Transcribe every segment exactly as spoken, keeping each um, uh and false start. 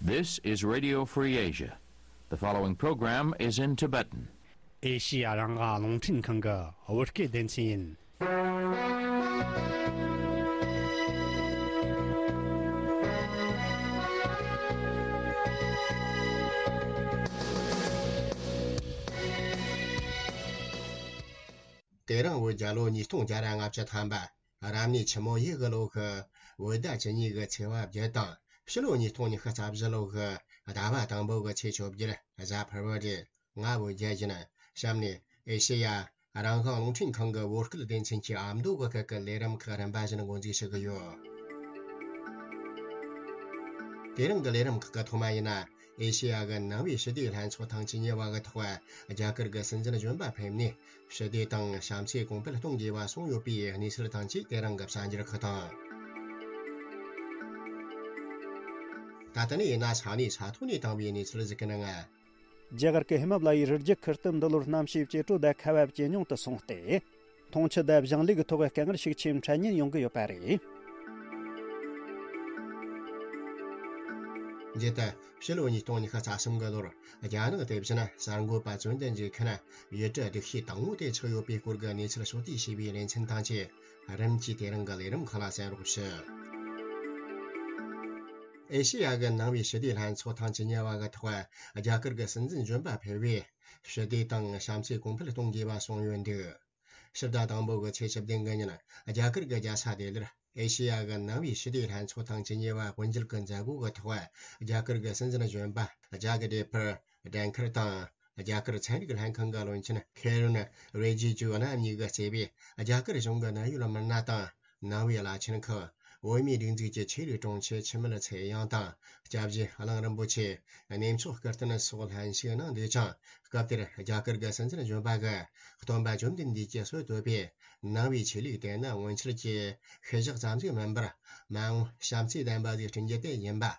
This is Radio Free Asia. The following program is in Tibetan. ཨེ་ཤི་ཡ་རང་དབང་རླུང་འཕྲིན་ཁང་གི་བོད་སྐད་སྡེ་ཚན་ཡིན། དེ་རིང་བོད་རྒྱལ་ལོ་ཉིས་སྟོང་བརྒྱ་ར་ལྔ་བཅུ་ཐམ་པ། རབ་གནས་ཆུ་མོ་ཡོས་གི་ལོ་གི་བོད་ཟླ་བཅུ་གཉིས་གི་ཚེས་པ་བརྒྱད་དང་ཕྱི་ལོ་ཉིས་སྟོང་ཉི་ཤུ་རྩ་བཞི་ལོ་གི་ཟླ་བ་དང་པོ་གི་ཚེས་བཅོ་བརྒྱད་གཟའ་ཕུར་བུ་རེད། ང་བོད་རྒྱལ་ཡིན། གཤམ་ནས་ཨེ་ཤེ་ཡ་རང་དབང་རླུང་འཕྲིན་ཁང་གི་བོད་སྐད་སྡེ་ཚན་གྱི་ཨ་མདོ་གི་སྐད་ཀྱི་ལས་རིམ་ཁག་རིམ་པ་བཞིན་འགོ་འཛུགས་ཞུ་གི་ཡོད། དེ་རིང་གི་ལས་རིམ་ཁག་གི་ཐོག་མ་ཡིན་ན། ཨེ་ཤེ་ཡ་གི་ནང་པའི་ཞི་བདེའི་ལྷན་ཚོགས་ཐེངས་བཅུ་གཉིས་པ་གི་ཐོག་རྒྱ་གར་གྱི་སྲིད་འཛིན་གཞོན་པ་ཕེབས་ནས་ཞི་བདེ་དང་བྱམས་བརྩེ་གོང་འཕེལ་གཏོང་དགོས་པ་གསུངས་ཡོད་པའི་གནས་ཚུལ་དང་བཅས་དེ་རིང་གི་གསར་འགྱུར་ཁག་དང་། ད་ལྟ་ནས་ཡིན་ན་ས་གནས་ས་ཐོག་ནས་བཏང་བའི་གནས་ཚུལ་ཟིག་གི་ནང་། རྒྱ་གར་གྱི་ཧི་མ་ལ་ཡའི་རི་རྒྱུད་ཁུལ་དུ་འདི་ལོར་གནམ་གཤིས་ཇེ་དྲོ་དང་ཁ་བ་ཇེ་ཉུང་དུ་སོང་སྟེ། འཐུང་ཆུ་དང་ཞིང་ལས་ཀྱི་ཐོག་དཀའ་ངལ་ཤུགས་ཆེ་འཕྲད་ཉེན་ཡོང་གི་ཡོད་པ་རེད། འདི་ལྟར་ཕྱི་ལོ་ཉིས་སྟོང་ཉི་ཤུ་རྩ་གསུམ་གི་ལོར་རྒྱ་ནག་དེ་བཞིན་གསར་འགོད་པ་བཙོན་དུ་འཇུག་མཁན་ཡུལ་གྲུ་སྡུག་ཤོས་དང་པོ་དེ་ཆགས་ཡོད་པའི་སྐོར་གྱི་གནས་ཚུལ་ཕྱོགས་བསྡུས་བྱས་པའི་ལེ་ཚན་དང་བཅས་རིམ་གྱིས་དེ་རིང་གི་ལས་རིམ་ཁག་ལ་གསན་རོགས་ཞུ། ཨེ་ཤེ་ཡ་གི་ནང་པའི་ཞི་བདེའི་ལྷན་ཚོགས་ཐེངས་བཅུ་གཉིས་པ་གི་ཐོག་རྒྱ་གར་གྱི་སྲིད་འཛིན་གཞོན་པ་ཕེབས་པས་ཞི་བདེ་དང་བྱམས་བརྩེ་གོང་འཕེལ་གཏོང་དགོས་པ་གསུངས་ཡོད་འདུག་ཕྱི་ཟླ་དང་པོ་གི་ཚེས་བཅུ་བདུན་གི་ཉིན་རྒྱ་གར་གྱི་རྒྱལ་ས་ལྡི་ལིར་ཨེ་ཤེ་ཡ་གི་ནང་པའི་ཞི་བདེའི་ལྷན་ཚོགས་ཐེངས་བཅུ་གཉིས་པ་དབུ་འབྱེད་ཀྱི་མཛད་སྒོ་གི་ཐོག་རྒྱ་གར་གྱི་སྲིད་འཛིན་གཞོན་པ་ཇག་དེབ་པར་ལྡན་ཁར་དང་། རྒྱ་གར་ཚན་རིག་ལྷན་ཁང་གི་བློན་ཆེན་ཁེ་རེན་རི་ཇི་ཇུ་རྣམ་གཉིས་ཀྱིས་གཙོས་པའི་རྒྱ་གར་གཞུང་གི་གནད་ཡོད་མི་སྣ་དང་། ནང་པའི་བླ་ཆེན་ཁག་བོད་མིའི་སྒྲིག་འཛུགས་ཀྱི་ཆོས་རིག་དྲུང་ཆེ་འཆི་མེད་ཚེ་དབྱངས་དང་། སྐྱབས་རྗེ་གླིང་རིན་པོ་ཆེ། གནས་མཆོག་སྐུ་རྟེན་སོགས་ལྷན་ཞུགས་གནང་འདུག་ཅིང་། སྐབས་དེར་རྒྱ་གར་གྱི་སྲིད་འཛིན་གཞོན་པ་གིས་སྟོན་པ་བཅོམ་ལྡན་འདས་ཀྱིས་སྲོལ་བཏོད་པའི་ནང་པའི་ཆོས་ལུགས་དེ་ནི་སྔོན་ཆད་ཀྱི་ཤུལ་བཞག་ཙམ་ཞིག་མིན་པར། མ་འོངས་བྱམས་བརྩེའི་བདེན་པ་ཞིག་བསྐྲུན་རྒྱུ་དེ་ཡིན་པ།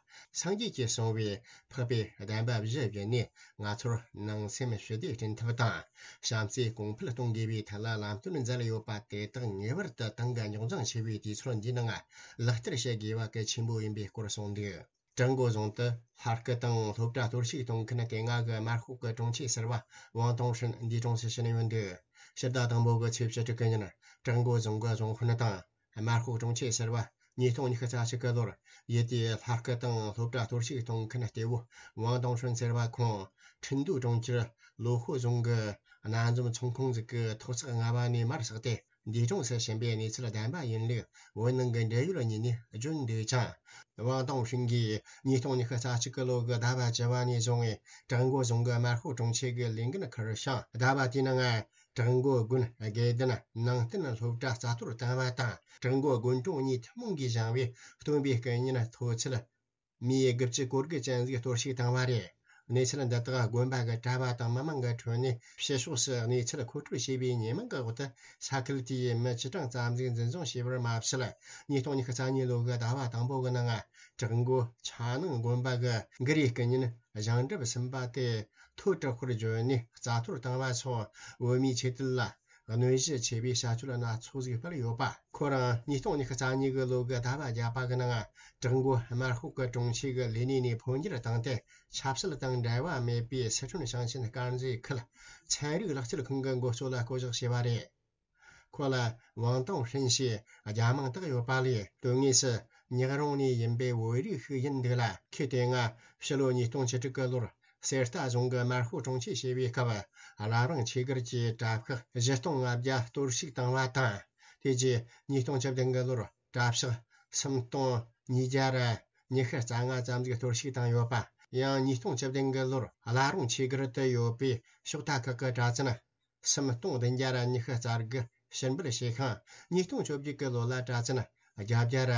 སངས་རྒྱས་ཀྱིས་གསུངས་པའི་འཕགས་པའི་བདེན་པ་བཞི་བརྒྱུད་ནས་ང་ཚོར་ནང་སེམས་ཞི་བདེ་བསྐྲུན་ཐབས་དང་། བྱམས་བརྩེ་གོང་འཕེལ་གཏོང་དགོས་པའི་ཐད་ལ་ལམ་སྟོན་མཛད་ཡོད་པ་དེ་དག་ངེས་པར་དུ་ཏང་གི་རྙོག་འཛིང་ཆེ་བའི་དུས་ཚོད་འདིའི་ནང་ལག་བསྟར་བྱེད་དགོས་པ་གལ་ཆེན་པོ་ཡིན་པའི་སྐོར་གསུངས་འདུག་བྲག་མགོ་རྫོང་དུ་ལྷ་སྐུ་དང་སློབ་གྲྭ་གཏོར་བཤིག་གཏོང་མཁན་དེ་སྔ་གི་དམར་ཤོག་གི་དྲུང་ཆེ་ཟུར་པ་ཝང་ཏུང་ཧྲིན་འདས་གྲོངས་སུ་ཕྱིན་ཡོད་འདུག་ཕྱི་ཟླ་དང་པོ་གི་ཚེས་བཅུ་དྲུག་གི་ཉིན་བྲག་མགོ་རྫོང་གི་རྫོང་དཔོན་དང་དམར་ཤོག་དྲུང་ཆེ་ཟུར་པ་ཉིས་སྟོང་ཉི་ཤུ་རྩ་གཅིག་གི་ལོར་ཡུལ་དེའི་ལྷ་སྐུ་དང་སློབ་གྲྭ་གཏོར་བཤིག་གཏོང་མཁན་གཏེ་བོ་ཝང་ཏུང་ཧྲིན་ཟེར་བ་ཁོང་ཁྲིན་ཏུའུ་གྲོང་ཁྱེར་ལོ་ཧོ་རྫོང་གི་སྣ་འཛོམས་ཚོང་ཁང་ཟིག་གི་ཐོག་བརྩེགས་ལྔ་པ་ནས་མར་ཟགས་ཏེ། འདས་གྲོངས་སུ་ཕྱིན་པའི་གནས་ཚུལ་བདེན་པ་ཡིན་ལུགས་བོད་ནང་གི་འབྲེལ་ཡོད་གཉིས་ནས་བརྗོད་འདུག་ཅིང་། ཝང་ཏུང་ཧྲིན་གྱིས་ཉིས་སྟོང་ཉི་ཤུ་རྩ་གཅིག་གི་ལོ་གི་ཟླ་བ་བཅུ་པ་ནས་བཟུང་བྲག་མགོ་རྫོང་གི་དམར་ཤོག་དྲུང་ཆེ་གི་ལས་འགན་འཁུར་ཞིང་། ཟླ་བ་དེའི་ནང་བྲག་མགོ་དགོན་དགེ་ལྡན་ནང་བསྟན་སློབ་གྲྭ་རྩ་གཏོར་བཏང་བ་དང་། བྲག་མགོ་དགོན་གྲོང་གཉིས་ཐུན་མོང་གིས་བཞེངས་པའི་སྟོན་པའི་སྐུ་བརྙན་མཐོ་ཚད་མིའི་དགུ་བཅུ་གོ་དགུ་ཅན་ཟིག་གཏོར་བཤིག་བཏང་བ་རེད། གནས་ཚུལ་འདི་དག་དགོན་པ་གི་གྲྭ་པ་དང་མི་མང་གི་ཁྲོད་ནས་ཕྱི་ཕྱོགས་སུ་གནས་ཚུལ་མཁོ་སྤྲོད་བྱས་པའི་ཉེས་མིང་གི་འོག་ཏུ་ས་ཁུལ་དེའི་མི་བཅུ་གྲངས་ཙམ་ཟིག་འཛིན་བཟུང་བྱས་པར་མ་ཟད། ཉིས་སྟོང་ཉི་ཤུ་རྩ་གཉིས་ལོ་གི་ཟླ་བ་དང་པོ་གི་ནང་བྲག་མགོ་ཆ་ནང་དགོན་པ་གི་གུ་རུའི་སྐུ་བརྙན་བཞེངས་གྲུབ་ཟིན་པ་དེ་མཐོ་དྲགས་པར་བརྗོད་ནས་རྩ་གཏོར་བཏང་བ་སོགས་བོད་མིའི་ཆོས་དད་ལ། གནོད་གཞི་ཆེ་བའི་བྱ་སྤྱོད་སྣ་ཚོགས་ཤིག་སྤེལ་ཡོད་པ། ཁོ་རང་ཉིས་སྟོང་ཉི་ཤུ་རྩ་གཉིས་གི་ལོ་གི་ཟླ་བ་བརྒྱད་པ་གི་ནང་བྲག་མགོ་དམར་ཤོག་གི་དྲུང་ཆེ་གི་ལས་གནས་ནས་འཕོ་འགྱུར་བཏང་སྟེ། ཆབ་སྲིད་དང་འབྲེལ་བ་མེད་པའི་སི་ཁྲོན་ཞིང་ཆེན་དཀར་མཛེས་ཁུལ་ཚན་རིག་ལག་རྩལ་ཁང་གི་འགོ་གཙོ་ལ་བསྐོ་གཞག་བྱས་པ་རེད། ཁོ་ལ་ཝང་ཏུང་ཧྲིན་ཞེས་རྒྱ་མིང་བཏགས་ཡོད་པ་ལས། དོན་དངོས་སུ་ཉག་རོང་ནས་ཡིན་པའི་བོད་རིགས་ཤིག་ཡིན་འདུག་ལ། ཁོས་དེ་སྔ་ཕྱི་ལོ་ཉིས་སྟོང་བཅུ་དྲུག་གི་ལོར། གསེར་རྟ་རྫོང་གི་དམར་ཤོག་དྲུང་ཆེ་བྱས་པའི་སྐབས། བླ་བྲང་ཆོས་སྒར་གྱི་གྲྭ་ཤག་བཞི་སྟོང་ལྔ་བརྒྱ་གཏོར་བཤིག་བཏང་བ་དང་། དེ་རྗེས་ཉིས་སྟོང་བཅུ་བདུན་གི་ལོར་གྲྭ་ཤག་སུམ་སྟོང་ཉིས་བརྒྱ་ར་ཉི་ཤུ་རྩ་ལྔ་ཙམ་ཞིག་གཏོར་བཤིག་བཏང་ཡོད་པ། ཡང་ཉིས་སྟོང་བཅུ་བདུན་གི་ལོར་བླ་བྲང་ཆོས་སྒར་དུ་ཡོད་པའི་ཕྱོགས་མཐའ་ཁག་གི་གྲྭ་བཙུན་སུམ་སྟོང་བདུན་བརྒྱ་ར་ཉི་ཤུ་རྩ་དགུ་ཕྱིར་འབུད་བྱས་ཤིང་། ཉིས་སྟོང་བཅོ་བརྒྱད་གི་ལོ་ལ་གྲྭ་བཙུན་བརྒྱད་བརྒྱ་ར་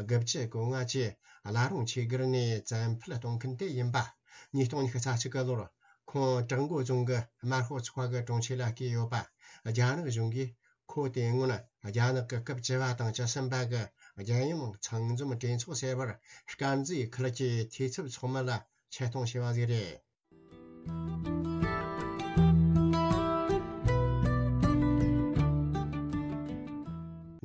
དགུ་བཅུ་གོ་ལྔ་བཅས་བླ་བྲང་ཆོས་སྒར་ནས་བཙན་འཕུད་གཏོང་མཁན་དེ་ཡིན་པ། ཉིས་སྟོང་ཉི་ཤུ་རྩ་གཅིག་གི་ལོར་ཁོང་བྲག་མགོ་རྫོང་གི་དམར་ཤོག་ཚོགས་པ་གི་དྲུང་ཆེ་ལ་བསྐོས་ཡོད་པ། རྒྱ་ནག་གཞུང་གིས་ཁོ་དེ་སྔོན་རྒྱ་ནག་གི་སྐབས་བཅུ་བ་དང་བཅུ་གསུམ་པ་གི་རྒྱལ་ཡོངས་ཚང་འཛོམས་གྲོས་ཚོགས་ཟེར་བར་དཀར་མཛེས་ཁུལ་གྱི་འཐུས་ཚབ་ཚོགས་མི་ལ་ཆེད་གཏོང་བྱས་པ་ཞིག་རེད།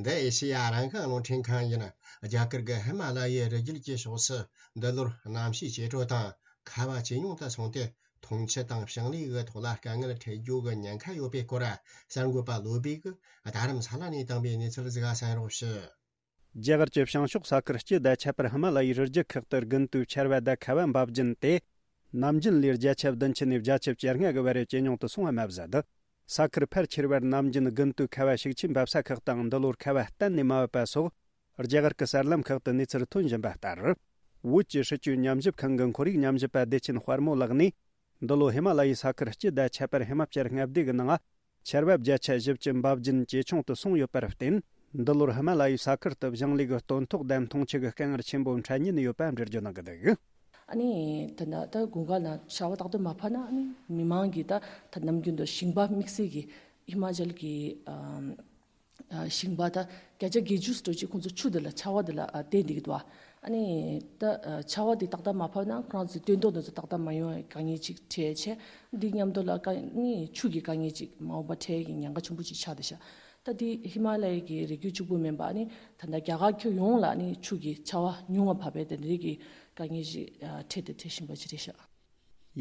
འདི་ཨེ་ཤེ་ཡ་རང་དབང་རླུང་འཕྲིན་ཁང་ཡིན། རྒྱ་གར་གྱི་ཧི་མ་ལ་ཡའི་རི་རྒྱུད་ཀྱི་ཕྱོགས་སུ་འདི་ལོར་གནམ་གཤིས་ཇེ་དྲོ་དང་ཁ་བ་ཇེ་ཉུང་དུ་སོང་སྟེ། འཐུང་ཆུ་དང་ཞིང་ལས་ཀྱི་ཐོག་ལ་དཀའ་ངལ་འཕྲད་རྒྱུ་གི་ཉེན་ཁ་ཡོད་པའི་སྐོར། གསར་འགོད་པ་བློ་བྷེ་གིས་རྡ་རམ་ས་ལ་ནས་བཏང་པའི་གནས་ཚུལ་ཟིག་གསན་རོགས་ཞུ། རྒྱ་གར་གྱི་བྱང་ཕྱོགས་ས་ཁུལ་སྤྱི་དང་ཁྱད་པར་ཧི་མ་ལ་ཡའི་རི་རྒྱུད་ཁག་ཏུ་དགུན་དུས་ཆར་པ་དང་ཁ་བ་འབབ་རྒྱུན་དེ། ནམ་རྒྱུན་ལས་བརྒྱ་ཆ་བདུན་ཅུ་ནས་བརྒྱ་ཆ་བཅོ་ལྔ་གི་བར་ཇེ་ཉུང་དུ་སོང་བ་མ་ཟད། ས་ཁུལ་ཕལ་ཆེ་བར་ནམ་རྒྱུན་དགུན་དུས་ཁ་བ་ཤུགས་ཆེན་འབབ་ས་ཁག་དང་འདི་ལོར་ཁ་བ་གཏན་ནས་མ་བབས་པ་སོགས། རྒྱ་གར་གྱི་གསར་ལམ་ཁག་ཏུ་གནས་ཚུལ་ཐོན་བཞིན་པ་ལྟར། བོད་ཀྱི་སྲིད་བྱུས་ཉམས་ཞིབ་ཁང་གི་ཁོར་ཡུག་ཉམས་ཞིབ་པ་བདེ་ཆེན་དཔལ་མོ་ལགས་ནས། འདི་ལོ་ཧི་མ་ལ་ཡའི་ས་ཁུལ་སྤྱི་དང་ཁྱད་པར་ཧི་མ་ཅལ་མངའ་སྡེ་གི་ནང་ཆར་པ་བརྒྱ་ཆ་བཞི་བཅུ་འབབ་རྒྱུན་ཇེ་ཆུང་དུ་སོང་ཡོད་པར་བརྟེན། འདི་ལོར་ཧི་མ་ལ་ཡའི་ས་ཁུལ་དུ་ཞིང་ལས་ཀྱི་སྟོན་ཐོག་དང་འཐུང་ཆུ་གི་དཀའ་ངལ་ཆེན་པོ་འཕྲད་ཉེན་ཡོད་པ་འགྲེལ་བརྗོད་གནང་གི་འདུག། ཨ་ནི་ད་ལྟ་ད་དགུན་ཁ་ལ་ཆར་པ་ཏག་ཏག་མ་བབས་ན། ཨ་ནི་མི་མང་གིས་ད་ད་ནམ་རྒྱུན་དུ་ཞིང་པ་དམིགས་བསལ་གྱི་ཧི་མ་ཅལ་གྱི་ཨམ། ཨ། ཞིང་པ་ད་བརྒྱ་ཆ་བརྒྱད་ཅུ་ཙམ་ཅིག་ཁོང་ཚོ་ཆུ་དེ་ལ་ཆར་པ་དེ་ལ་ཨ་བརྟེན་བསྡད་ཀྱི་འདུག། ཨ་ནི་ད་ཨ་ཆར་པ་དེ་ཏག་ཏག་མ་བབས་ན་ཁོ་རང་ཚོའི་སྟོན་ཐོག་དེ་ཚོ་ཏག་ཏག་མ་ཡོང་བའི་དཀའ་ངལ་ཅིག་འཕྲད་བྱས། འདི་མཉམ་དུ་ལ་དཀའ་ནི་ཆུ་གི་དཀའ་ངལ་ཅིག་མ་འོངས་པ་འཕྲད་ཀྱི་ཉེན་ཁ་ཆེན་པོ་ཅིག་ཆགས་བསྡད་ཤག། ད་འདི་ཧི་མ་ལ་ཡའི་གི་རི་རྒྱུད་གཅིག་པུ་མིན་པ། ཨ་ནི་ད་ལྟ་རྒྱ་གར་ཁྱོན་ཡོངས་ལ་ཨ་ནི་ཆུ་གི་ཆར་པ་ཉུང་བ་བབས་པས་དེ་འདྲའི་གི་དཀའ་ངལ་ཅིག་ཨ་འཕྲད་དང་འཕྲད་བཞིན་པ་ཅིག་རེད་ཤག།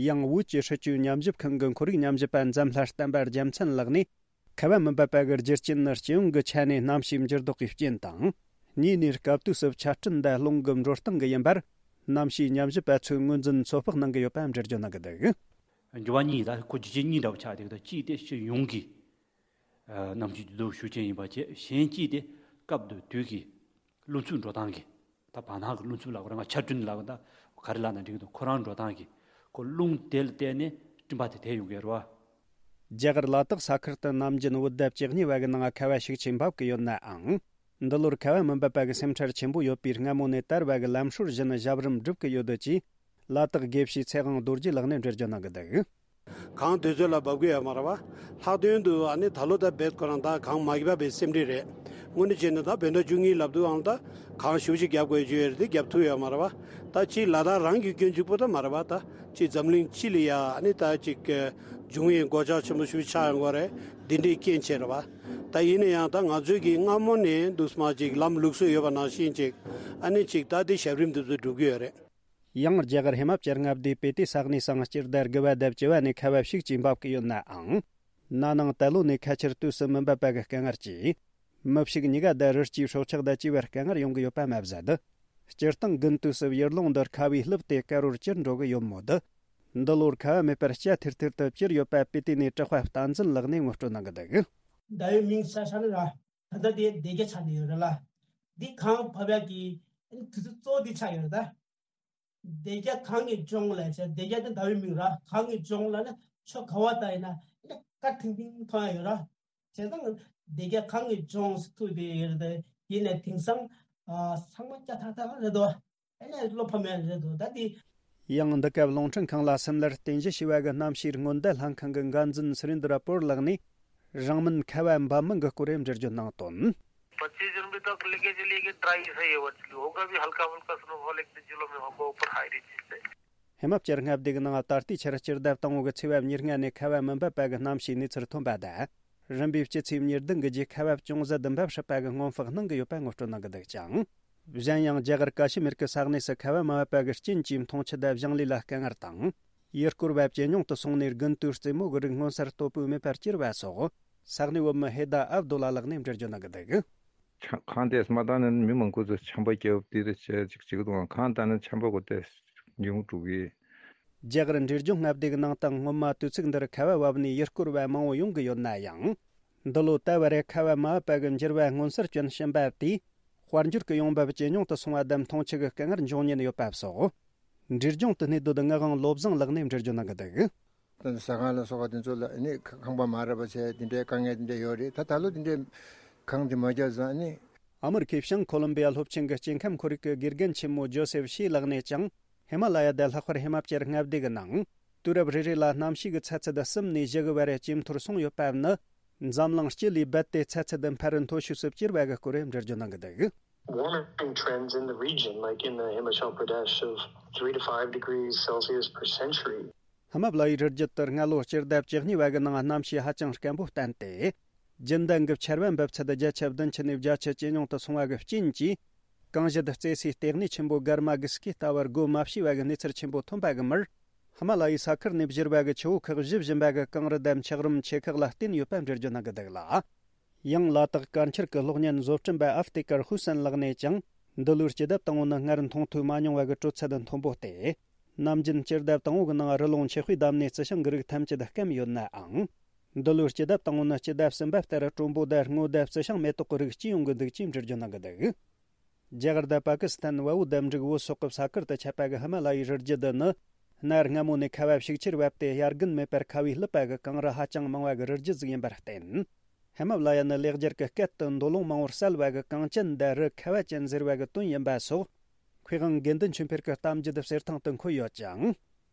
ཡང་བོད་ཀྱི་སྲིད་བྱུས་ཉམས་ཞིབ་ཁང་གི་ཁོར་ཡུག་ཉམས་ཞིབ་པ་འཛམ་ལྷ་བསྟན་པ་རྒྱལ་མཚན་ལགས་ནས། ཁ་བ་མི་འབབ་པ་གི་རྒྱུ་རྐྱེན་ནི་སྤྱི་ཡོངས་ཀྱི་ཆ་ནས་གནམ་གཤིས་འགྱུར་ལྡོག་གི་རྐྱེན་དང་། གཉིས་ནས་སྐབས་དུས་སུ་ཆར་སྤྲིན་དང་རླུང་གི་འགྲོ་སྟངས་ཀྱིས་ཡིན་པར། གནམ་གཤིས་ཉམས་ཞིབ་པ་ཚོས་ངོས་འཛིན་ཚོད་དཔག་གནང་གི་ཡོད་པ་འགྲེལ་བརྗོད་གནང་གི་འདུག། འགྱུར་བ་གཉིས། ད་ཁོ་རྒྱུ་རྐྱེན་གཉིས་འདྲ་བོ་ཆགས་བསྡད་ཀྱི་འདུག། གཅིག་དེ་སྤྱི་ཡོངས་ཀྱི་གནམ་གཤིས་འགྱུར་ལྡོག་ཤུགས་ཆེན་ཡིན་པ་བཅས། གཞན་གཅིག་དེ་སྐབས་དང་དུས་ཀྱི་རླུང་འཚུབ་འགྲོ་སྟངས་ཀྱི། ད་བར་སྣང་གི་རླུང་འཚུབ་ལབ་དགོས་རེད། ང་ཆར་སྤྲིན་ལབ་དགོས། ད་ག་རེ་ལབ་ན་འགྲིག་གི་འདུག། ཁོ་རང་འགྲོ་སྟངས་ཀྱི། ཁོ་རླུང་དེ་ལ་བརྟེན་ནས་སྤྲིན་པ་དེ་དེད་ཡོང་གི་རེད་བ། རྒྱ་གར་ལ་དྭགས་ས་ཁུལ་དུ་ནམ་རྒྱུན་བོད་ཟླ་བཅུ་གཉིས་པ་གི་ནང་ཁ་བ་ཤུགས་ཆེན་འབབ་ཀྱི་ཡོད་ནའང་། འདི་ལོར་ཁ་བ་མི་འབབ་པ་གི་སེམས་ཁྲལ་ཆེན་པོ་ཡོད་པས། སྔ་མོ་ནས་དར་བ་གི་ལམ་སྲོལ་བཞིན་ཞབས་རིམ་སྒྲུབ་ཀྱི་ཡོད་འདུག་ཅེས། ལ་དྭགས་དགེ་བཤེས་ཚེ་དབང་རྡོ་རྗེ་ལགས་ནས་འགྲེལ་བརྗོད་གནང་གི་འདུག། གངས་དུས་ཚོད་ལ་འབབ་ཀྱི་ཡོད་མ་རེད་བ། ལྷག་དོན་དུ་ཨ་ནི་ད་ལོ་ད་རྦད་ཁོ་རང་ད་གངས་མ་བབས་པའི་སེམས་ཁྲལ་རེད། དངོས་གནས་བྱས་ན་ད་བོད་ཟླ་བཅུ་གཉིས་ལབ་དུས་ཨང་ད་གངས་ཞེ་པོ་ཅིག་བརྒྱབ་དགོས་ཀྱི་ཡོད་རེད་དེ། བརྒྱབ་ཐུབ་ཡོད་མ་རེད་བ། ད་ཅིག་ལ་དྭགས་རང་གི་སྐྱོན་གཅིག་པོ་ད་མ་རེད་བ། ད་ཅིག་འཛམ་གླིང་སྤྱི་ལ་ཡ་ཨ་ནི་ད་ཅིག་འབྱུང་བའི་གོད་ཆག་ཆེན་པོ་ཞེ་པོ་ཆགས་ཡོང་གི་རེད། འདི་འདྲའི་རྐྱེན་བྱས་རེད་བ། ད་ཡིན་ན་ཡང་ད་ང་ཚོས་ཀྱི་སྔ་མོ་ནས་འདུག་སེ་མར་ཅིག་ལམ་ལུགས་སྲོལ་ཡོད་པ་ནང་བཞིན་ཅིག་ཨ་ནི་ཅིག་ད་དེ་ཞབས་རིམ་འདི་ཚོ་སྒྲུབ་ཀྱི་ཡོད་རེད། ཡང་རྒྱ་གར་ཧི་མ་ཅལ་མངའ་སྡེའི་སྤི་ཏི་ས་གནས་སུའང་སྤྱི་ཟླ་དགུ་པ་དང་བཅུ་པ་ནས་ཁ་བ་ཤུགས་ཆེན་འབབ་ཀྱི་ཡོད་ནའང་། ན་ནིང་ད་ལོ་ནས་ཁ་ཆར་དུས་སུ་མི་འབབ་པ་གི་དཀའ་ངལ་གྱིས། མི་ཕྱུགས་གཉིས་ཀ་དང་རི་སྐྱེས་སྲོག་ཆགས་དང་བཅས་པར་དཀའ་ངལ་ཡོང་གི་ཡོད་པ་མ་ཟད། སྤྱིར་བཏང་དགུན་དུས་སུ་ཡུལ་ལུང་འདིར་ཁ་བས་བསླུབས་ཏེ་དཀར་པོར་གྱུར་འགྲོ་གི་ཡོད་མོད། འདི་ལོར་ཁ་བ་མེད་པར་སྐྱ་ཐིར་ཐིར་དུ་གྱུར་ཡོད་པ་སྤི་ཏི་ནས་གྲགས་པ་བསྟན་འཛིན་ལགས་ནས་ངོ་སྤྲོད་གནང་གི་འདུག། ཟླ་བའི་མིང་ས་ས་ནི་ར། ད་ལྟ་དེ་སྡེ་བརྒྱད་ཆགས་ནས་ཡོད་རེད་ལ། འདི་གངས་བབས་ཡག་གི་དུས་ཚོད་གཙོ་བོ་འདི་ཆགས་ཡོད་རེད་ད། སྡེ་བརྒྱད་གངས་ཀྱི་ལྗོངས་ལ་བྱས། སྡེ་བརྒྱད་དེ་ཟླ་བའི་མིང་ར། གངས་ཀྱི་ལྗོངས་ལ་ནི་ཕྱོགས་ག་བ་ལྟ་ཡིན་ན་ནི་དཀར་ཐིང་ཐིང་མཐོང་ཡག་ཡོད་ར། བྱས་ཙང་སྡེ་བརྒྱད་གངས་ཀྱི་ལྗོངས་སུ་ཐུག་བསྡད་ཡོད་རེད་དེ། ཡིན་ནའི་དེང་སང་ཨ་ཚང་མ་སྐྱ་ཐག་ཐག་རེད་དོ། ཨ་ནི་བློ་ཕམ་ཡག་རེད་དོ། ད་དེ། ཡང་འདི་སྐབས་རླུང་འཕྲིན་ཁང་ལ་སིམ་ལར་རྟེན་གཞི་བྱས་པ་གི་གནམ་གཤིས་སྔོན་བརྡ་ལྷན་ཁང་གི་འགན་འཛིན་སུ་རིན་དྲ་པོར་ལགས་ནས། རིང་མིན་ཁ་བ་འབབ་མིན་གྱི་སྐོར་འགྲེལ་བརྗོད་གནང་དོན། पच्चीस जून भी तक लेके चलिए कि ड्राई सा ही है वर्चुअली। होगा भी हल्का फुल्का स्नोफॉल एक दो जिलों में होगा, ऊपर हाई रेंजेस पे। ཧི་མ་ཅལ་མངའ་སྡེ་གི་ནང་ད་ལྟའི་ཆར་སྤྱི་ཟླ་དང་པོ་གི་ཚེས་པ་ཉེར་ལྔ་ནས་ཁ་བ་མི་འབབ་པ་གི་གནམ་གཤིས་གནས་ཚུལ་ཐོན་པ་དང་། རིམ་པས་སྤྱི་ཚེས་ཉེར་བདུན་གི་རྗེས་ཁ་བ་ཅུང་ཟད་འབབ་སྲིད་པ་གི་སྔོན་དཔག་གནང་གི་ཡོད་པ་ངོ་སྤྲོད་གནང་གི་འདུག་ཅིང་། གཞན་ཡང་རྒྱ་གར་ཀ་ཤི་མིར་གྱི་ས་གནས་སུ་ཁ་བ་མ་བབས་པ་གི་རྐྱེན་གྱིས་འཐུང་ཆུ་དང་ཞིང་ལས་ལ་དཀའ་ངལ་དང་། ཡུལ་སྐོར་བ་ཇེ་ཉུང་དུ་སོང་ནས་དགུན་དུས་རྩེད་མོ་གི་རིགས་མངོན་གསལ་དོད་པོས་མེད་པར་གྱུར་བ་སོགས། ས་གནས་བོད་མི་ཧེ་ད་ཨབ་དུ་ལ་ལགས་ནས་འགྲེལ་བརྗོད་གནང་གི་འདུག། ཆ་གངས་དེ་མ་བཏང་ན་མི་མང་པོ་ཚོ་ཆམ་པ་བརྒྱབ་དེ་རེ་བྱས་ཅིག་བྱེད་ཀྱི་འདུག། གངས་བཏང་ན་ཆམ་པ་གོ་དེ་ཉུང་འགྲོ་གི། རྒྱ་གར་འབྲས་ལྗོངས་མངའ་སྡེ་གི་ནང་དུ་སྔོན་མ་དུས་ཚིགས་འདིར་ཁ་བ་བབས་ནས་ཡུལ་སྐོར་བ་མང་བོ་ཡོང་གི་ཡོད་ན་ཡང་། འདི་ལོ་ད་བར་ཁ་བ་མ་བབས་པ་གི་འགྱུར་བ་མངོན་གསལ་སྐྱོན་བཞིན་པ་དེས། དཔལ་འབྱོར་གྱི་ཡོང་འབབ་ཇེ་ཉུང་དུ་སོང་བ་དང་འཐུང་ཆུ་གི་དཀའ་ངལ་འབྱུང་ཉེན་ཡོད་པ་སོགས། འབྲས་ལྗོངས་དུ་གནས་སྡོད་ངག་དབང་བློ་བཟང་ལགས་ནས་འགྲེལ་བརྗོད་གནང་གི་འདུག། ད་ཟ་ཁང་ལ་སོགས་པ་དེ་ཚོ་ལ་ནི་ཁང་པ་མ་རག་པ་བྱས། དེ་འདྲའི་དཀའ་ངལ་དེ་འདྲ་ཡོད་རེད། ད་ད་ལོ་དེ་འདྲའི་གངས་དེ་མ་བརྒྱབ་ཙང་ནི། ཨ་མི་རི་ཁའི་བྱང་ཁོ་ལོམ་བི་ཡ་སློབ་ཆེན་གྱི་སྐྱེ་ཁམས་ཁོར་ཡུག་གི་དགེ་རྒན་ཆེན་མོ་ཇོ་སེབ་ཤི་ལགས་ནས་ཀྱང་། ཧི་མ་ལ་ཡ་དང་ལྷག་པར་ཧི་མ་ཅལ་མངའ་སྡེ་གི་ནང་། དུས་རབས་རེ་རེ་ལ་གནམ་གཤིས་ཀྱི་ཚ་ཚད་གསུམ་ནས་བཞི་གི་བར་ཇེ་མཐོར་སོང་ཡོད་པ་ནི། འཛམ་གླིང་སྤྱི་ལས་རྦད་དེ་ཚ་ཚད་འཕར་མཐོ་ཤོས་སུ་གྱུར་བ་གི་སྐོར་འགྲེལ་བརྗོད་གནང་གི་འདུག། Warming trends in the region, like in uh, Himachal Pradesh, of three to five degrees Celsius per century. ཧི་མ་ལ་ཡའི་རི་རྒྱུད་དུ་སྔ་ལོ་སྤྱི་ཟླ་བཅུ་གཉིས་པ་གི་ནང་གནམ་གཤིས་ཧ་ཅང་སྐམ་པོ་བསྟན་ཏེ། རྒྱུན་ལྡན་གྱི་ཆར་པ་འབབ་ཚད་བརྒྱ་ཆ་བདུན་ཅུ་ནས་བརྒྱ་ཆ་ཇེ་ཉུང་དུ་སོང་བ་གི་རྐྱེན་གྱིས། གངས་ཞལ་རྩེ་སའི་ལྟེ་གནས་ཆེན་པོ་གར་མ་གི་སྐེ་ལྟ་བུར་སྒོ་མ་ཕྱེ་བ་གི་གནས་ཚུལ་ཆེན་པོ་ཐོན་པ་གི་མུར། ཧི་མ་ལ་ཡའི་ས་ཁུལ་ནས་བཞུར་བ་གི་ཆུ་བོ་ཁག་བཞུ་བཞིན་པ་གི་གངས་རི་དང་འཁྱགས་རོམ་ཆེ་ཁག་ལ་བརྟེན་ཡོད་པ་འགྲེལ་བརྗོད་གནང་གི་འདུག་ལ། ཡང་ལ་དྭགས་དཀར་འཁྱིལ་གྱི་གློག་བརྙན་བཟོ་སྐྲུན་པ་ཨབ་ཏེ་ཀར་ཧུ་སན་ལགས་ནས་ཀྱང་། འདི་ལོའི་སྐྱེ་ལྡབ་དང་པོ་ནི་སྔར་མཐོང་ཐོས་མ་མྱོང་བ་གི་དྲོད་ཚད་མཐོན་པོ་སྟེ། ནམ་རྒྱུན་སྐྱེ་ལྡབ་དང་པོ་གི་ནང་རི་ཀླུང་ཆུ་དཔེ་བསྡམས་ནས་རྩི་ཤིང་གི་རིགས་ཐམས་ཅད་སྐམ་ཡོད་ནའང་། འདི་ལོའི་སྐྱེ་ལྡབ་དང་པོ་ནི་སྐྱེ་ལྡབ་གསུམ་པ་ལྟར་དྲོན་པོ་དང་སྔོ་ལྡབ་རྩི་ཤིང་མེ་ཏོག་གི་རིགས་སྐྱེ་ཡོང་གི་འདུག་ཅེས་འགྲེལ་བརྗོད་གནང་གི་འདུག། རྒྱ་གར་དང་པ་ཀི་སི་ཐན་བལ་པོ་དང་འབྲུག་བོད་སོག་གི་ས་ཁུལ་དུ་ཁྱབ་པ་གི་ཧི་མ་ལ་ཡའི་རི་རྒྱུད་འདི་ནི། གནའ་སྔ་མོ་ནས་ཁ་བ་ཤུགས་ཆེར་བབས་ཏེ། དབྱར་དགུན་མེད་པར་ཁ་བའི་ལུད་པ་གི་གངས་རི་ཧ་ཅང་མང་བ་གི་རི་རྒྱུད་ཟིག་ཡིན་པར་བརྟེན། ཧི་མ་ལ་ཡ་ནི་ལེགས་སྦྱར་གྱི་སྐད་དུ་མདོ་ལུང་མང་བོར་གསལ་བ་གི་གངས་ཅན་དང་རི་ཁ་བ་ཅན་ཟེར་བ་གི་དོན་ཡིན་པ་སོགས། མཁས་དབང་དགེ་འདུན་ཆོས་འཕེལ་གྱི་གཏམ་རྒྱུད་གསེར་ཐང་དུ་འཁོད་ཡོད་ཅིང་།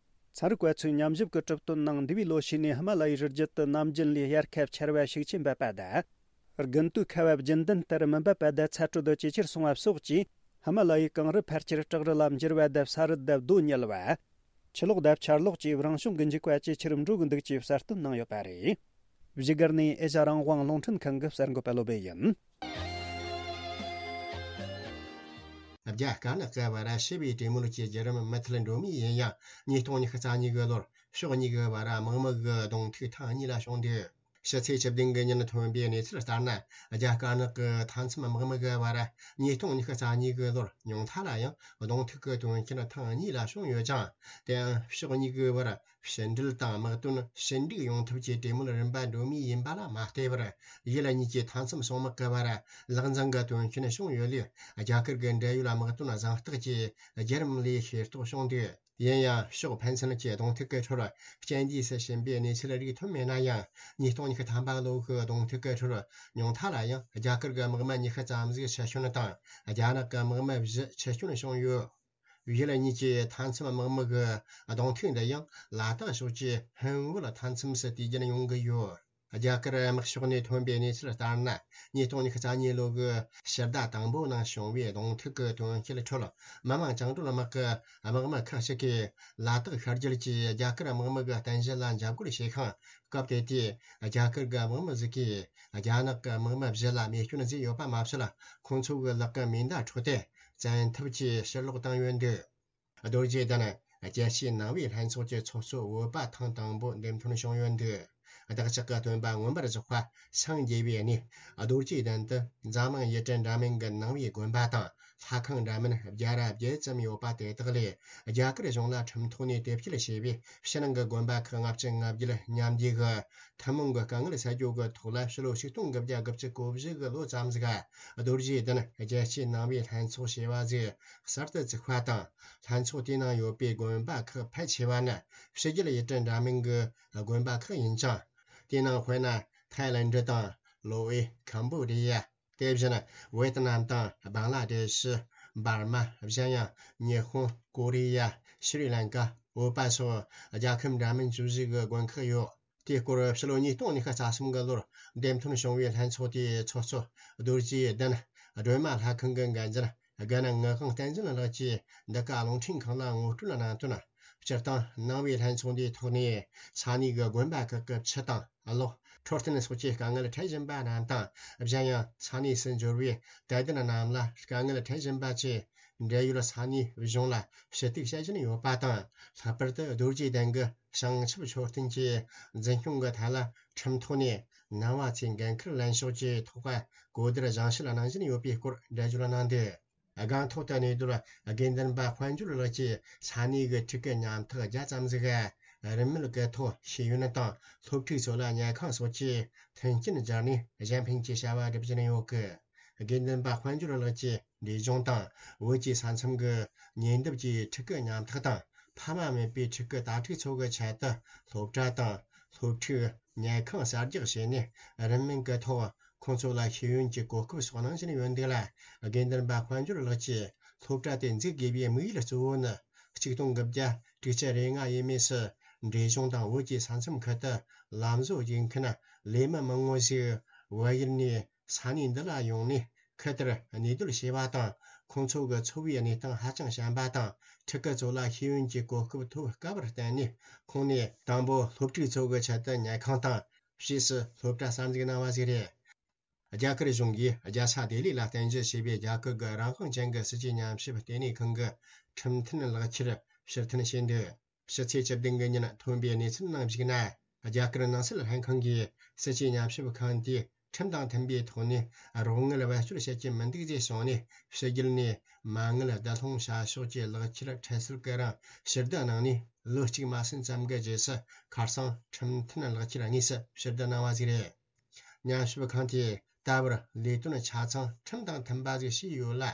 ཚན་རིག་པ་ཚོའི་ཉམས་ཞིབ་ཀྱི་གྲུབ་དོན་ནང་། འདས་པའི་ལོ་ཤས་ནས་ཧི་མ་ལ་ཡའི་རི་རྒྱུད་དུ་ནམ་རྒྱུན་ལས་དབྱར་ཁ་ཆར་བ་ཤུགས་ཆེ་འབབ་པ་དང་། དགུན་དུས་ཁ་བ་རྒྱུན་ལྡན་ལྟར་མི་འབབ་པ་དང་ཚ་དྲོད་ཇེ་ཆེར་སོང་བ་སོགས་ཀྱིས། ཧི་མ་ལ་ཡའི་གངས་རི་ཕལ་ཆེར་བྲག་རི་ལ་འགྱུར་བ་དང་། ས་རུད་དང་རྡོ་ཉིལ་བ། ཆུ་ལོག་དང་ཆར་ལོག་བཅས་རང་བྱུང་གི་འཇིགས་པ་ཇེ་ཆེར་འགྲོ་གི་འདུག་ཅེས་གསལ་སྟོན་གནང་ཡོད་པ་རེད། བཞུགས་སྒར་ནས་ཨེ་ཤ་རང་དབང་རླུང་འཕྲིན་ཁང་གི་གསར་འགོད་པ་བློ་བྷེ་ཡིན། རྒྱ་དཀར་ནག་གི་བར་ཞི་བའི་གྲོས་མོལ་གྱི་བརྒྱུད་རིམ་མུ་མཐུད་འགྲོ་མུས་ཡིན་ཡང་། ཉིས་སྟོང་ཉི་ཤུ་རྩ་གཉིས་ཀྱི་ལོར་ཕྱོགས་གཉིས་ཀྱི་བར་དམག་མི་གི་གདོང་ཐུག་ཐེངས་གཉིས་ལ་བྱུང་འདུག། ཕྱི་ཚེས་བཅུ་བདུན་གྱི་ཉིན་ཐོན་པའི་གནས་ཚུལ་ལྟར་ན། རྒྱ་དཀར་ནག་གི་མཐའ་མཚམས་དམག་མི་གི་བར་ཉིས་སྟོང་ཉི་ཤུ་རྩ་གཉིས་ཀྱི་ལོར་ཉུང་མཐའ་ལ་ཡང་གདོང་ཐུག་གི་དོན་རྐྱེན་ཐེངས་གཉིས་ལ་བྱུང་ཡོད་ཅིང་། དེའང་ཕྱོགས་གཉིས་ཀྱི་བར་ཕྱི་འབྲེལ་དང་དམག་དོན་ཞི་འགྲིག་ཡོང་ཐབས་ཀྱི་གྲོས་མོལ་རིམ་པ་འགྲོ་མུས་ཡིན་པ་ལ་མ་ལྟོས་པར། ཡུལ་གཉིས་ཀྱི་མཐའ་མཚམས་སྲུང་དམག་གི་བར་ལག་འཛིང་གི་དོན་རྐྱེན་བྱུང་ཡོད་ལུགས། རྒྱ་གར་གྱི་འབྲེལ་ཡོད་དམག་དོན་གཟེངས་རྟགས་ཀྱི་བརྒྱུད་རིམ་ལས་ཤེས་རྟོགས་བྱུང་འདུག། ཡིན་ཡང་། ཕྱོགས་ཕན་ཚུན་གྱི་གདོང་ཐུག་གི་ཁྲོད་རྐྱེན་འདས་སུ་ཕྱིན་པའི་གནས་ཚུལ་རིགས་ཐོན་མེད་ན་ཡང་། ཉིས་སྟོང་ཉི་ཤུ་ཐམ་པ་ལོ་གི་གདོང་ཐུག་གི་ཁྲོད་ཉུང་མཐའ་ལ་ཡང་རྒྱ་གར་གྱི་དམག་མི་ཉི་ཤུ་ཙམ་ཞིག་འཆི་སྐྱོན་དང་། རྒྱ་ནག་གི་དམག་མི་བཞི་འཆི་སྐྱོན་བྱུང་ཡོད། ཡུལ་གཉིས་ཀྱི་མཐའ་མཚམས་དམག་མི་གི་གདོང་ཐུག་འདི་ཡང་ལ་དྭགས་ཕྱོགས་ཀྱི་ཧོན་བོད་མཐའ་མཚམས་སུ་དུས་རྒྱུན་ཡོང་གི་ཡོད། རྒྱ་གར་དམག་ཕྱོགས་ནས་ཐོན་པའི་གནས་ཚུལ་ལྟར་ན། ཉིས་སྟོང་ཉི་ཤུ་རྩ་གཉིས་ལོ་གི་ཕྱི་ཟླ་དང་པོ་ནང་བྱུང་བའི་གདོང་ཐུག་གི་དོན་རྐྱེན་ཁྲོད། མི་དམངས་བཅིངས་འགྲོལ་དམག་གི་དམག་མི་ཁག་ཅིག་གིས་ལ་དྭགས་ཤར་རྒྱུད་ཀྱི་རྒྱ་གར་དམག་མི་གི་རྟེན་གཞི་ལ་འཇབ་རྒོལ་བྱས་ཤིང་། སྐབས་དེ་དུས་རྒྱ་གར་གྱི་དམག་མི་ཟིག་གིས་རྒྱ་ནག་གི་དམག་མི་བཞི་ལ་རྨས་སྐྱོན་བཟོས་ཡོད་པ་མ་ཟད། ཁོང་ཚོ་གི་ལག་གི་མེ་མདའ་འཕྲོག་སྟེ་བཙན་ཐབས་ཀྱིས་ཕྱིར་སློག་བཏང་ཡོད་འདུག། རྡོ་རྗེ་གདན་རྒྱལ་སྤྱིའི་ནང་པའི་ལྷན་ཚོགས་ཀྱི་ཚོགས་གཙོ་བོད་པ་ཐེངས་དང་པོ་འདེམས་ཐོན་བྱུང་ཡོད་འདུག། བདག་ཅག་གི་སྟོན་པ་མངོན་པར་རྫོགས་པ་སངས་རྒྱས་པའི་གནས་རྡོ་རྗེ་གདན་དུ། འཛམ་གླིང་ཡུལ་གྲུ་འདྲ་མིན་གྱི་ནང་པའི་དགོན་པ་དང་། ལྷ་ཁང་འདྲ་མིན་བརྒྱ་ར་བརྒྱད་ཙམ་ཡོད་པ་དེ་དག་ལས། རྒྱ་གར་གཞུང་ལ་ཁྲིམས་ཐོག་ནས་དེབ་སྐྱེལ་བྱས་པའི་ཕྱི་ནང་གི་དགོན་པ་ཁག་ལྔ་བཅུ་ང་བརྒྱད་མཉམ་འདུས་ཀྱི་ཐུན་མོང་གི་དཀའ་ངལ་སེལ་རྒྱུ་གི་ཐོག་ལ། ཕྱི་ལོ་ཆིག་སྟོང་དགུ་བརྒྱ་དགུ་བཅུ་གོ་བཞི་གི་ལོ་ཙམ་ཟིག་ག་རྡོ་རྗེ་གདན་རྒྱལ་སྤྱིའི་ནང་པའི་ལྷན་ཚོགས་ཞེས་པ་ཟིག་གསར་དུ་བཙུགས་པ་དང་། ལྷན་ཚོགས་དེའི་ནང་ཡོད་པའི་དགོན་པ་ཁག་ཕལ་ཆེ་བ་ནི་ཕྱི་རྒྱལ་ཡུལ་གྲུ་འདྲ་མིན་གྱི་དགོན་པ་ཁག་ཡིན་ཅིང་། དེའི་ནང་དཔེར་ན། ཐའི་ལེན་ཌི་དང་། ལོ་ཨེ། ཁམ་བྷོ་ཌི་ཡ། དེ་བཞིན་ཝེ་ཏི་ནམ་དང་། བང་ལ་དེ་ཤི། འབར་མ། གཞན་ཡང་། ཉི་ཧོང་། ཀོ་རི་ཡ། ཤྲི་ལང་ཀ། བོད་པ་སོགས་རྒྱལ་ཁབ་འདྲ་མིན་བཅུ་བཞི་གི་དགོན་ཁག་ཡོད། དེའི་སྐོར་ཕྱི་ལོ་ཉིས་སྟོང་ཉི་ཤུ་རྩ་གསུམ་གི་ལོར་འདེམས་ཐོན་བྱུང་བའི་ལྷན་ཚོགས་དེའི་ཚོགས་གཙོ་རྡོ་རྗེ་གདན་སྒྲོལ་མ་ལྷ་ཁང་གི་འགན་འཛིན་དགའ་ན་ངག་དབང་བསྟན་འཛིན་ལགས་ཀྱིས་འདི་ག་རླུང་འཕྲིན་ཁང་ལ་ངོ་སྤྲོད་གནང་དོན། སྤྱིར་བཏང་ནང་པའི་ལྷན་ཚོགས་འདིའི་ཐོག་ནས་ས་གནས་ཀྱི་དགོན་པ་ཁག་གི་ཆུ་དང་གློག་འཕྲོད་བསྟེན་སོགས་ཀྱི་དཀའ་ངལ་འཕྲད་བཞིན་པ་རྣམས་དང་། གཞན་ཡང་ས་གནས་སུ་འབྱོར་བའི་དད་ལྡན་རྣམས་ལ་དཀའ་ངལ་འཕྲད་བཞིན་པ་བཅས་འབྲེལ་ཡོད་ས་གནས་གཞུང་ལ་ཞུ་གཏུག་བྱེད་བཞིན་ཡོད་པ་དང་། ལྷག་པར་དུ་རྡོ་རྗེ་གདན་གྱི་བྱང་ཆུབ་མཆོད་རྟེན་གྱི་འཛིན་སྐྱོང་གི་ཐད་ལ་ཁྲིམས་ཐོག་ནས་ནང་པ་ཚོས་འགན་འཁུར་ལེན་ཕྱོགས་ཀྱི་ཐོག་གོ་བསྡུར་སྦྱང་བཤད་གནང་བཞིན་ཡོད་པའི་སྐོར་འགྲེལ་བརྗོད་གནང་འདུག། སྒང་ཐོག་ཏུ་གནས་སྡོད་དགེ་འདུན་པ་དཔལ་འབྱོར་ལགས་ཀྱིས་ས་གནས་ཀྱི་ཕྲུ་གུ་ཉམ་ཐག་བརྒྱ་ཙམ་ཟིག་རིན་མེད་ཀྱི་ཐོག་ཤེས་ཡོན་དང་སློབ་ཕྲུག་ཚོ་ལ་ཉལ་ཁང་སོགས་ཀྱི་མཐུན་རྐྱེན་སྦྱར་ནས་གཞན་ཕན་གྱི་བྱ་བ་སྒྲུབ་བཞིན་ཡོད་ཀི། དགེ་འདུན་པ་དཔལ་འབྱོར་ལགས་ཀྱིས་འབྲས་ལྗོངས་དང་བོད་ཀྱི་ས་མཚམས་ཀྱི་ཉེ་འདབས་ཀྱི་ཕྲུ་གུ་ཉམ་ཐག་དང་ཕ་མ་མེད་པའི་ཕྲུ་གུ་དྭ་ཕྲུག་ཚོ་གི་ཆེད་དུ་སློབ་གྲྭ་དང་སློབ་ཕྲུག་ཉལ་ཁང་གསར་རྒྱག་བྱས་ནས་རིན་མེད་ཀྱི་ཐོག་ཁོང་ཚོ་ལ་ཤེས་ཡོན་གྱི་གོ་སྐབས་སོགས་གནང་བཞིན་ཡོད་འདུག་ལ། དགེ་འདུན་པ་དཔལ་འབྱོར་ལགས་ཀྱིས་སློབ་གྲྭ་དེ་འཛུགས་དགོས་པའི་དམིགས་ཡུལ་གཙོ་བོ་ནི་ཆིག་སྟོང་དགུ་བརྒྱ་དྲུག་ཅུ་རེ་ལྔ་ཡས་མས་སུ་འབྲས་ལྗོངས་དང་བོད་ཀྱི་ས་མཚམས་ཁུལ་དུ་ལམ་བཟོ་བྱེད་མཁན་ལས་མི་མང་བོ་ཞིག་བལ་ཡུལ་ནས་ས་གནས་འདི་ལ་ཡོང་ནས་ཁུལ་དེར་གནས་སྡོད་བྱས་པ་དང་། ཁོང་ཚོ་གི་འཚོ་བའི་གནས་སྟངས་ཧ་ཅང་ཞན་པ་དང་། ཕྲུ་གུ་ཚོ་ལ་ཤེས་ཡོན་གྱི་གོ་སྐབས་ཐོབ་དཀའ་བར་བརྟེན་ནས། ཁོང་ནས་དང་པོ་སློབ་ཕྲུག་ཚོ་གི་ཆེད་དུ་ཉལ་ཁང་དང་ ཞེས་སུ་སློབ་གྲྭ་གསར་འཛུགས་གནང་བ་ཞིག་རེད། རྒྱ་གར་གཞུང་གིས་རྒྱལ་ས་ལྡི་ལི་ལ་རྟེན་གཞི་བྱས་པའི་རྒྱ་གར་གྱི་རང་དབང་ཅན་གྱི་སྲིད་ཇུས་ཉམས་ཞིབ་ལྟེ་གནས་ཁང་གི་ཁྲིམས་མཐུན་ལག་ཁྱེར་ཕྱིར་འཐེན་བྱས་འདུག་ཕྱི་ཚེས་བཅུ་བདུན་གྱི་ཉིན་ཐོན་པའི་གནས་ཚུལ་ནང་གཞིགས་ན། རྒྱ་གར་ནང་སྲིད་ལྷན་ཁང་གིས་སྲིད་ཇུས་ཉམས་ཞིབ་ཁང་དེས་ཁྲིམས་དང་མཐུན་པའི་ཐོག་ནས་རོགས་དངུལ་བེད་སྤྱོད་བྱེད་ཀྱི་མི་འདུག་ཅེས་གསུངས་ནས། ཕྱི་རྒྱལ་ནས་མ་དངུལ་བསྡུ་སློང་བྱ་ཕྱོགས་ཀྱི་ལག་ཁྱེར་ཁྲལ་སེལ་གྱི་རིང་ཕྱིར་བསྡུ་གནང་ནས། ལོ་གཅིག་མ་ཟིན་ཙམ་གྱི་རྗེས་སུ་ཁ་སང་ཁྲིམས་མཐུན་ལག་ཁྱེར་དངོས་སུ་ཕྱིར་བསྡུ་གནང་བ་ཞིག་རེད། ཉམས་ཞིབ་ཁང་དེས་ད་བར་ལས་དོན་ཆ་ཚང་ཁྲིམས་དང་མཐུན་པ་ཞིག་བྱས་ཡོད་ལ།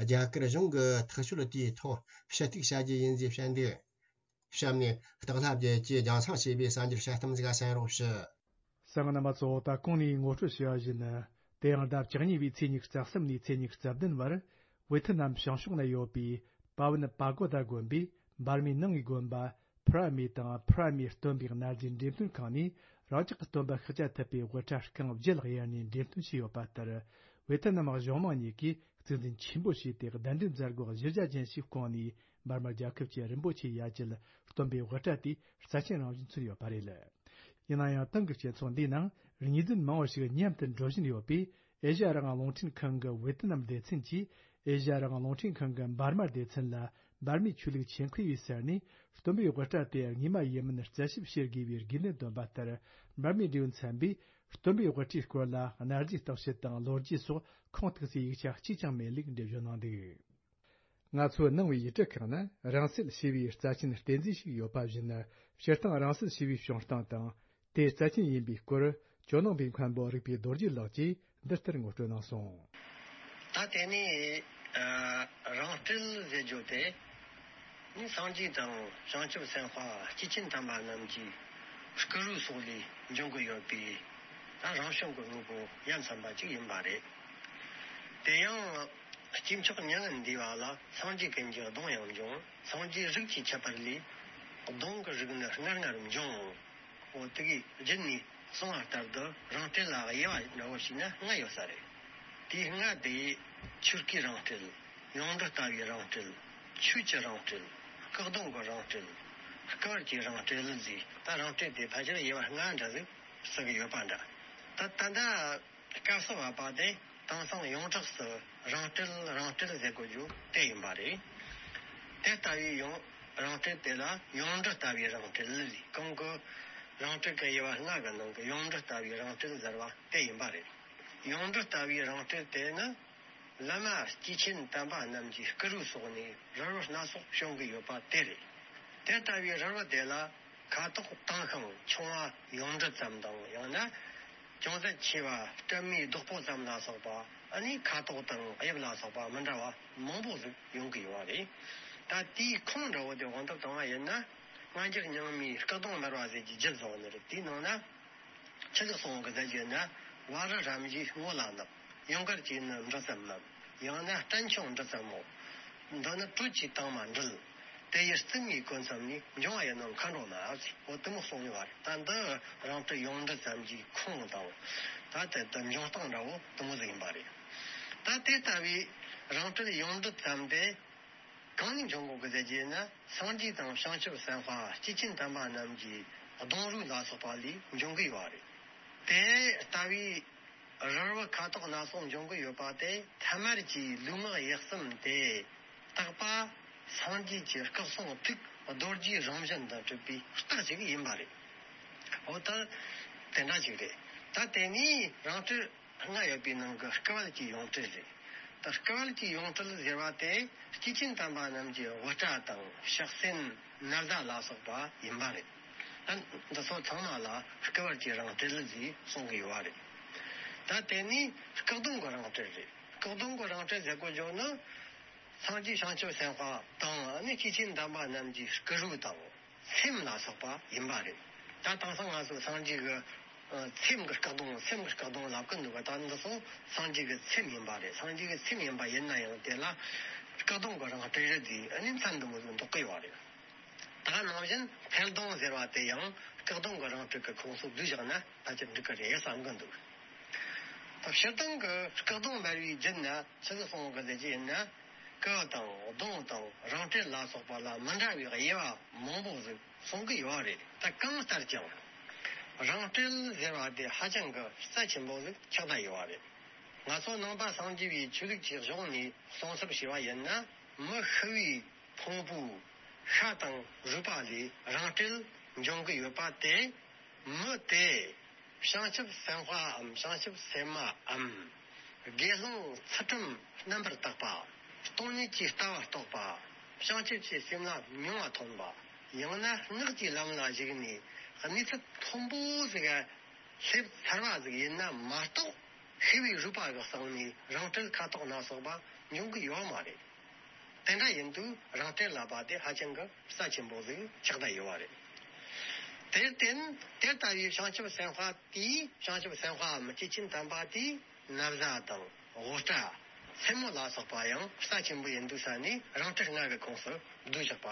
རྒྱ་གར་གཞུང་གི་ཐག་གཅོད་དེའི་ཐོག་ཞུ་གཏུག་བྱ་རྒྱུ་ཡིན་ཞེས་བཤད་འདུག་གཤམ་ནས་སྟག་ལྷ་རྒྱལ་གྱིས་རྒྱང་སྲིང་བྱས་པའི་གསར་འགྱུར་དཔྱད་གཏམ་ཞིག་གསན་རོགས་ཞུ། གསན་མཁན་རྣམ་པ་ཚོ། ད་གོང་ནས་ངོ་སྤྲོད་བྱས་པ་བཞིན། དེ་ཡང་ཟླ་བཅུ་གཉིས་པའི་ཚེས་ཉི་ཤུ་རྩ་གསུམ་ནས་ཚེས་ཉི་ཤུ་རྩ་བདུན་བར། ཝེ་ཐི་ནམ་བྱང་ཕྱོགས་ན་ཡོད་པའི་པ་ཝུན་པ་གོ་ད་དགོན་པའི་འབར་མའི་ནང་གི་དགོན་པ་ཕུ་ར་མེ་དང་ཕུ་ར་མེ་སྟོན་པའི་གནའ་རྫས་འགྲེམས་སྟོན་ཁང་ནས། རང་ཅག་གི་སྟོན་པ་ཤཱཀྱ་ཐུབ་པའི་དབུ་སྐྲ་རྐང་བརྒྱད་གཡར་ནས་འགྲེམས་སྟོན་བྱས་ཡོད་པ་ལྟར། ཝེ་ཐི་ནམ་གཞུང་མང་གཉིས་ཀྱིས་གཙིགས་འཛིན་ཆེན་པོ་བྱས་ཏེ། གདན་འདྲེན་མཛད་སྒོ་གཞི་རྒྱ་ཅན་ཞིག་བསྐོངས་ནས། འབར་མ་རྒྱལ་ཁབ་ཀྱི་རིན་པོ་ཆེའི་ཡ་གྱལ་སྟོན་པའི་དབུ་སྐྲ་དེ་རྩ་ཆེན་རང་བཞིན་མཚོན་ཡོད་པ་རེད། ཡིན་ན་ཡང་། ཏང་གི་སྤྱི་ཚོགས་འདིའི་ནང་ངོས་འཛིན་མང་བ་ཞིག་མཉམ་དུ་འགྲོ་བཞིན་ཡོད་པས། ཨེ་ཤ་ཡ་རང་དབང་རླུང་འཕྲིན་ཁང་གི་ཝེ་ཏི་ནམ་སྡེ་ཚན་གྱིས། ཨེ་ཤ་ཡ་རང་དབང་རླུང་འཕྲིན་ཁང་གི་འབར་མ་སྡེ་ཚན་ལ་འབར་མའི་ཆོས་ལུགས་ཆེད་མཁས་པས་གསལ་ནས། སྟོན་པའི་དབུ་སྐྲ་དེ་དངོས་མ་ཡིན་མིན་རྩད་ཞིབ་བྱེད་དགོས་པའི་དགོས་འདུན་བཏོན་པ་ལྟར། འབར་མའི་འབྲེལ་ཡོད་ཚན་པས་སྟོན་པའི་དབུ་སྐྲའི་སྐོར་ལ་གནའ་རྫས་བརྟག་དཔྱད་དང་ལོ་རྒྱུས་སོགས་ཁུངས་གཏུགས་སའི་ཡིག་ཆ་གཅིག་ཀྱང་མེད་ལུགས་འགྲེལ་བརྗོད་གནང་འདུག་ང་ཚོའི་ནང་པའི་ཡིག་ཚང་ཁག་ན། རང་སྲིད་ཞེས་པའི་རྩ་ཆེན་རྟེན་རྫས་ཤིག་ཡོད་པ་བཞིན། སྤྱིར་བཏང་རང་སྲིད་ཞེས་པའི་བྱུང་སྟངས་དང་། དེའི་རྩ་ཆེན་ཡིན་པའི་སྐོར། ཇོ་ནང་པའི་མཁན་པོ་རིག་པའི་རྡོ་རྗེ་ལགས་ཀྱིས་འདི་ལྟར་ངོ་སྤྲོད་གནང་སོང་། ད་དེ་ནས་ཨ་རང་སྲིད་ཟེར་རྒྱུ་དེ་ནི་སངས་རྒྱས་དང་བྱང་ཆུབ་སེམས་དཔའ་སྐྱེས་ཆེན་དམ་པ་རྣམས་ཀྱི་སྐུ་རུས་སོགས་ལས་འབྱུང་གི་ཡོད་པའི་ད་རང་བྱུང་གི་དངོས་པོ་ཡ་མཚན་པ་ཅིག་ཡིན་པ་རེད། དེ་ཡང་། སྐྱེས་མཆོག་མྱ་ངན་འདས་པ་ལ་སངས་རྒྱས་ཀུན་གྱི་གདུང་ཡང་འབྱུང་། སངས་རྒྱས་རིགས་ཀྱི་ཁྱད་པར་ལས། གདུང་གི་རིགས་ནི་སྔར་སྔར་འབྱུང་། འོ་དེ་གའི་རྒྱུད་ནས་གསུངས་པ་ལྟར་དུ་རང་སྲིད་ལ་དབྱེ་བ་འདྲ་བོ་ཞིག་ན་ལྔ་ཡོད་ས་རེད། དེའི་ལྔ་དེ་ཆོས་སྐུའི་རང་སྲིད། ཡོངས་གྲུབ་ལྟ་བུའི་རང་སྲིད། ཆོས་ཀྱི་རང་སྲིད། སྐུ་གདུང་གི་རང་སྲིད། སྐུ་བལ་གྱི་རང་སྲིད་ཟེར། ད་རང་སྲིད་དེ་ཕལ་ཆེར་དབྱེ་བ་ལྔ་འདྲ་ཟིག་ཟེར་གི་ཡོད་པ་འདྲ། ད་ད་ལྟ། སྐབས་སུ་བབ་པ་དེ་དེང་སང་ཡོངས་གྲགས་སུ་རང་སྲིད་རང་སྲིད་ཟེར་དགོས་རྒྱུ་དེ་ཡིན་པ་རེད། དེ་ལྟ་བུའི་ཡང་རང་སྲིད་དེ་ལ་ཡོངས་གྲུབ་ལྟ་བུའི་རང་སྲིད་ལས་གོང་གི་རང་སྲིད་ཀྱི་དབྱེ་བ་ལྔ་གི་ནང་གི་ཡོངས་གྲུབ་ལྟ་བུའི་རང་སྲིད་ཟེར་བ་དེ་ཡིན་པ་རེད། ཡོངས་གྲུབ་ལྟ་བུའི་རང་སྲིད་དེ་ནི་བླ་མ་སྐྱེས་ཆེན་དམ་པ་རྣམས་ཀྱི་སྐུ་རུས་སོགས་ནས་རིལ་བུ་སྣ་ཚོགས་བྱུང་གི་ཡོད་པ་དེ་རེད། དེ་ལྟ་བུའི་རིལ་བུ་དེ་ལ། ཁ་དོག་དྭངས་ཤིང་ཆུང་བ་ཡོངས་འབྲུ་ཙམ་དང་། ཡང་ན་ཅུང་ཟད་ཆེ་བ་སྲན་མའི་རྡོག་པོ་ཙམ་ལ་སོགས་པ། ཨ་ནི་ཁ་དོག་དང་དབྱིབས་ལ་སོགས་པ་མི་འདྲ་བ་མང་པོ་ཟིག་ཡོང་གི་ཡོད་པ་རེད། ད་དེའི་ཁུངས་འདྲ་བོ་དེ་དབང་དུ་བཏང་བ་ཡིན་ན། སྔ་འགྱུར་རྙིང་མའི་སྐུ་གདུང་འབར་བ་ཟེར་གྱི་རྒྱུད་ཟེར་བ་ནི་རེད། དེའི་ནང་ན་ཆི་ཟིག་གསུངས་གི་ཟེར་གྱི་ན། བ་རི་རབ་བཞིའི་སྔོ་ལ་བསྣམས། ཡུངས་ཀར་གྱིས་ནི་འབྲུ་ཙམ་བསྣམས། ཡང་ན་སྲན་ཆུང་འབྲུ་ཙམ་མོ། འདི་ནི་དྲོད་ཀྱི་དྭངས་མ་འདྲིལ། དེ་ཡི་རྩིབས་ནས་གོས་མཚམས་ནས། འབྱུང་བ་ཡི་ནང་མཁའ་འགྲོ་མ་ཟེར། འོ་དེ་མོ་གསུངས་ཡོད་པ་རེད། ད་འདི་རང་སྲིད་ཡོངས་འབྲུ་ཙམ་གྱི་ཁུངས་དང་། ད་དེ་ལྟར་འབྱུང་སྟངས་འདྲ་བོ་དེ་མོ་ཟིག་ཡིན་པ་རེད། ད་དེ་ལྟ་བུའི་རང་སྲིད་ཡོངས་འབྲུ་ཙམ་དེ་གང་ནས་འབྱུང་གོ་གི་ཟེར་གྱི་ན། སངས་རྒྱས་དང་བྱང་ཆུབ་སེམས་དཔའ་སྐྱེས་ཆེན་དམ་པ་རྣམས་ཀྱི་གདུང་རུས་ལ་སོགས་པ་ལས་འབྱུང་གི་ཡོད་པ་རེད། དེ་ལྟ་བུའི་རིལ་བུ་ཁ་དོག་སྣ་ཚོགས་འབྱུང་གི་ཡོད་པ་དེ་ཐ་མལ་གྱི་ལུས་ངག་ཡིད་གསུམ་དེ་དག་པ་སངས་རྒྱས་ཀྱི་སྐུ་གསུང་ཐུགས་རྡོ་རྗེའི་རང་བཞིན་དུ་གྲུབ་པའི་རྟགས་ཅིག་ཡིན་པ་རེད། འོ་ད་དེ་འདྲ་ཅིག་རེད། ད་དེ་ནས་རང་སྲིད་ལྔ་ཡོད་པའི་ནང་གི་སྐུ་བལ་གྱི་ཡོངས་གྲུབ་རེད། ད་སྐུ་བལ་གྱི་ཡོངས་གྲུབ་ཟེར་བ་དེ་སྐྱེས་ཆེན་དམ་པ་རྣམས་ཀྱི་དབུ་སྐྲ་དང་ཕྱག་སེན་ན་བཟའ་ལ་སོགས་པ་ཡིན་པ་རེད། ད་འདི་ཚོ་ཚང་མ་ལ་སྐུ་བལ་གྱི་རང་སྲིད་ལ་ཟེར་གསུང་གི་ཡོད་པ་རེད། ད་དེ་ནས་སྐུ་གདུང་གི་རང་སྲིད་རེད། སྐུ་གདུང་གི་རང་སྲིད་ཟེར་དགོས་རྒྱུ་ནི། སངས་རྒྱས་བྱང་ཆུབ་སེམས་དཔའ་དང་ནི་སྐྱེས་ཆེན་དམ་པ་རྣམས་ཀྱི་སྐུ་རུས་དང་སེམས་ལ་སོགས་པ་ཡིན་པ་རེད། ད་དེང་སང་ང་ཚོ་སངས་རྒྱས་ཀྱི་ཨ་སེམས་ཀྱི་སྐུ་གདུང་། སེམས་ཀྱི་སྐུ་གདུང་ལབ་ཀྱི་འདུག་ག་ད་འདི་ཚོ་སངས་རྒྱས་ཀྱི་སེམས་ཡིན་པ་རེད། སངས་རྒྱས་ཀྱི་སེམས་ཡིན་པ་ཡིན་ན་ཡང་དེ་ལ་སྐུ་གདུང་གི་རང་སྲིད་རེད་ཟེར་ཨ་ནི་མཚན་འདི་མོ་ཟིག་འདོགས་ཀྱི་ཡོད་རེད། ད་ནང་བཞིན་འཕེལ་གདུང་ཟེར་བ་དེ་ཡང་སྐུ་གདུང་གི་རང་སྲིད་ཀྱི་ཁོངས་སུ་བསྡུས་བཞག་ན་ཕལ་ཆེར་འགྲིག་གི་རེད་བསམ་གི་འདུག་ད་སྤྱིར་བཏང་གི་སྐུ་གདུང་འབར་བའི་རྒྱུད་ན་ཆི་ཟིག་གསུངས་གི་ཟེར་གྱི་ཡིན་ན། སྐུ་དང་གདུང་དང་རང་སྲིད་ལ་སོགས་པ་ལ་མི་འདྲ་བའི་དབྱེ་བ་མང་པོ་ཟིག་གསུང་གི་ཡོད་རེད། ད་གང་ལྟར་ཀྱང་ རང་སྤྲེལ་ཟེར་བ་དེ་ཧ་ཅང་གི་རྩ་ཆེན་པོ་ཟིག་ཆགས་བསྡད་ཡོད་པ་རེད། ང་ཚོ་ནང་པ་སངས་རྒྱས་པའི་ཆོས་ལུགས་ཀྱི་གཞུང་ནས་གསུང་ཚུལ་བྱས་པ་ཡིན་ན། མི་ཤི་བའི་ཕུང་པོའི་ཤ་དང་རུས་པ་ལས་རང་སྤྲེལ་འབྱུང་གི་ཡོད་པ་དེ། མི་དེ་བྱང་ཆུབ་སེམས་དཔའམ་བྱང་ཆུབ་སེམས་མའམ། དགེ་སློང་ཚུལ་ཁྲིམས་རྣམ་པར་དག་པ། སྟོང་ཉིད་ཀྱི་ལྟ་བ་རྟོགས་པ། བྱང་ཆུབ་ཀྱི་སེམས་ལ་མྱོང་བ་ཐོན་པ། ཡང་ན་སྔགས་ཀྱི་ལམ་ལ་ཞུགས་ནས་གནས་ཚུལ་མཐོན་པོ་ཟིག་ག་སླེབས་ཚར་བ་ཟིག་ཡིན་ན་མ་གཏོགས། ཤི་བའི་རུས་པ་གི་སྟེང་ནས་རང་སྤྲེལ་ཁ་དོག་སྣ་ཚོགས་པ་འབྱུང་གི་ཡོད་མ་རེད། དེ་འདྲ་ཡིན་དུས་རང་སྤྲེལ་ལབ་པ་དེ་ཧ་ཅང་གི་རྩ་ཆེན་པོ་ཟིག་ཆགས་བསྡད་ཡོད་པ་རེད། དེར་བརྟེན་དེ་ལྟ་བུའི་བྱང་ཆུབ་སེམས་དཔའ་དེས། བྱང་ཆུབ་སེམས་དཔའམ་སྐྱེས་ཆེན་དམ་པ་དེས་ན་བཟའ་དང་དབུ་སྐྲ། མཚན་མོ་ལ་སོགས་པ་ཡང་རྩ་ཆེན་པོ་ཡིན་དུས་ས་ནས་རང་སྤྲེལ་ལྔ་གི་ཁོངས་སུ་བསྡུས་བཞག་པ་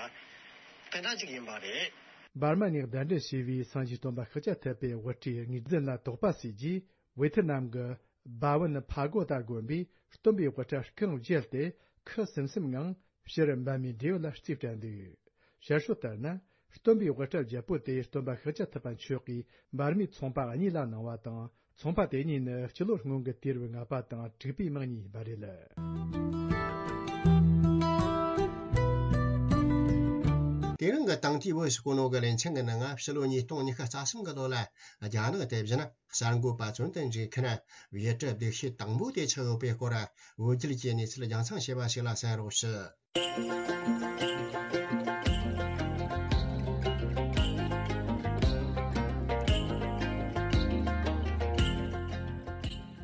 དེ་འདྲ་ཅིག་ཡིན་པ་རེད། འབར་མ་ནས་གདན་འདྲེན་བྱས་པའི་སངས་རྒྱས་སྟོན་པ་ཤཱཀྱ་ཐུབ་པའི་དབུ་སྐྲའི་ངོས་འཛིན་ལ་དོགས་པ་ཟོས་རྗེས། ཝེ་ཐི་ནམ་གྱི་སྦ་ཝུན་ཕ་གོ་ཏ་དགོན་པས་སྟོན་པའི་དབུ་སྐྲ་རྐང་བརྒྱད་དེ་ཁུ་སིམ་སིམ་ངང་ཕྱིར་འབར་མའི་འབྲས་བུ་ལ་རྩིས་སྤྲད་འདུག། ཞར་ཤོད་ལྟར་ན། སྟོན་པའི་དབུ་སྐྲ་བརྒྱད་པོ་དེ་སྟོན་པ་ཤཱཀྱ་ཐུབ་པ་མཆོག་གིས་འབར་མའི་ཚོང་པ་གཉིས་ལ་གནང་བ་དང་། ཚོང་པ་དེ་གཉིས་ནི་སྤྱི་ལོ་སྔོན་གྱི་དུས་རབས་ལྔ་པ་དང་དྲུག་པའི་མིང་གཉིས་ཡིན་པ་རེད། དེ་རིང་གི་དེང་དུས་བོད་ཀྱི་གོ་ནོ་གི་ལེ་ཚན་གྱི་ནང་ང་ཕྱི་ལོ་ཉིས་སྟོང་ཉི་ཤུ་རྩ་གསུམ་གི་ལོ་ལ་རྒྱ་ནག་དེ་བཞིན་གསར་འགོད་པ་བཙོན་དུ་འཇུག་མཁན་ཡུལ་གྲུ་སྡུག་ཤོས་དང་པོ་དེ་ཆགས་ཡོད་པའི་སྐོར་བོད་བརྒྱུད་ཀྱི་གནས་ཚུལ་རྒྱང་སྲིང་བྱས་པ་ཞིག་ལ་གསན་རོགས་ཞུ།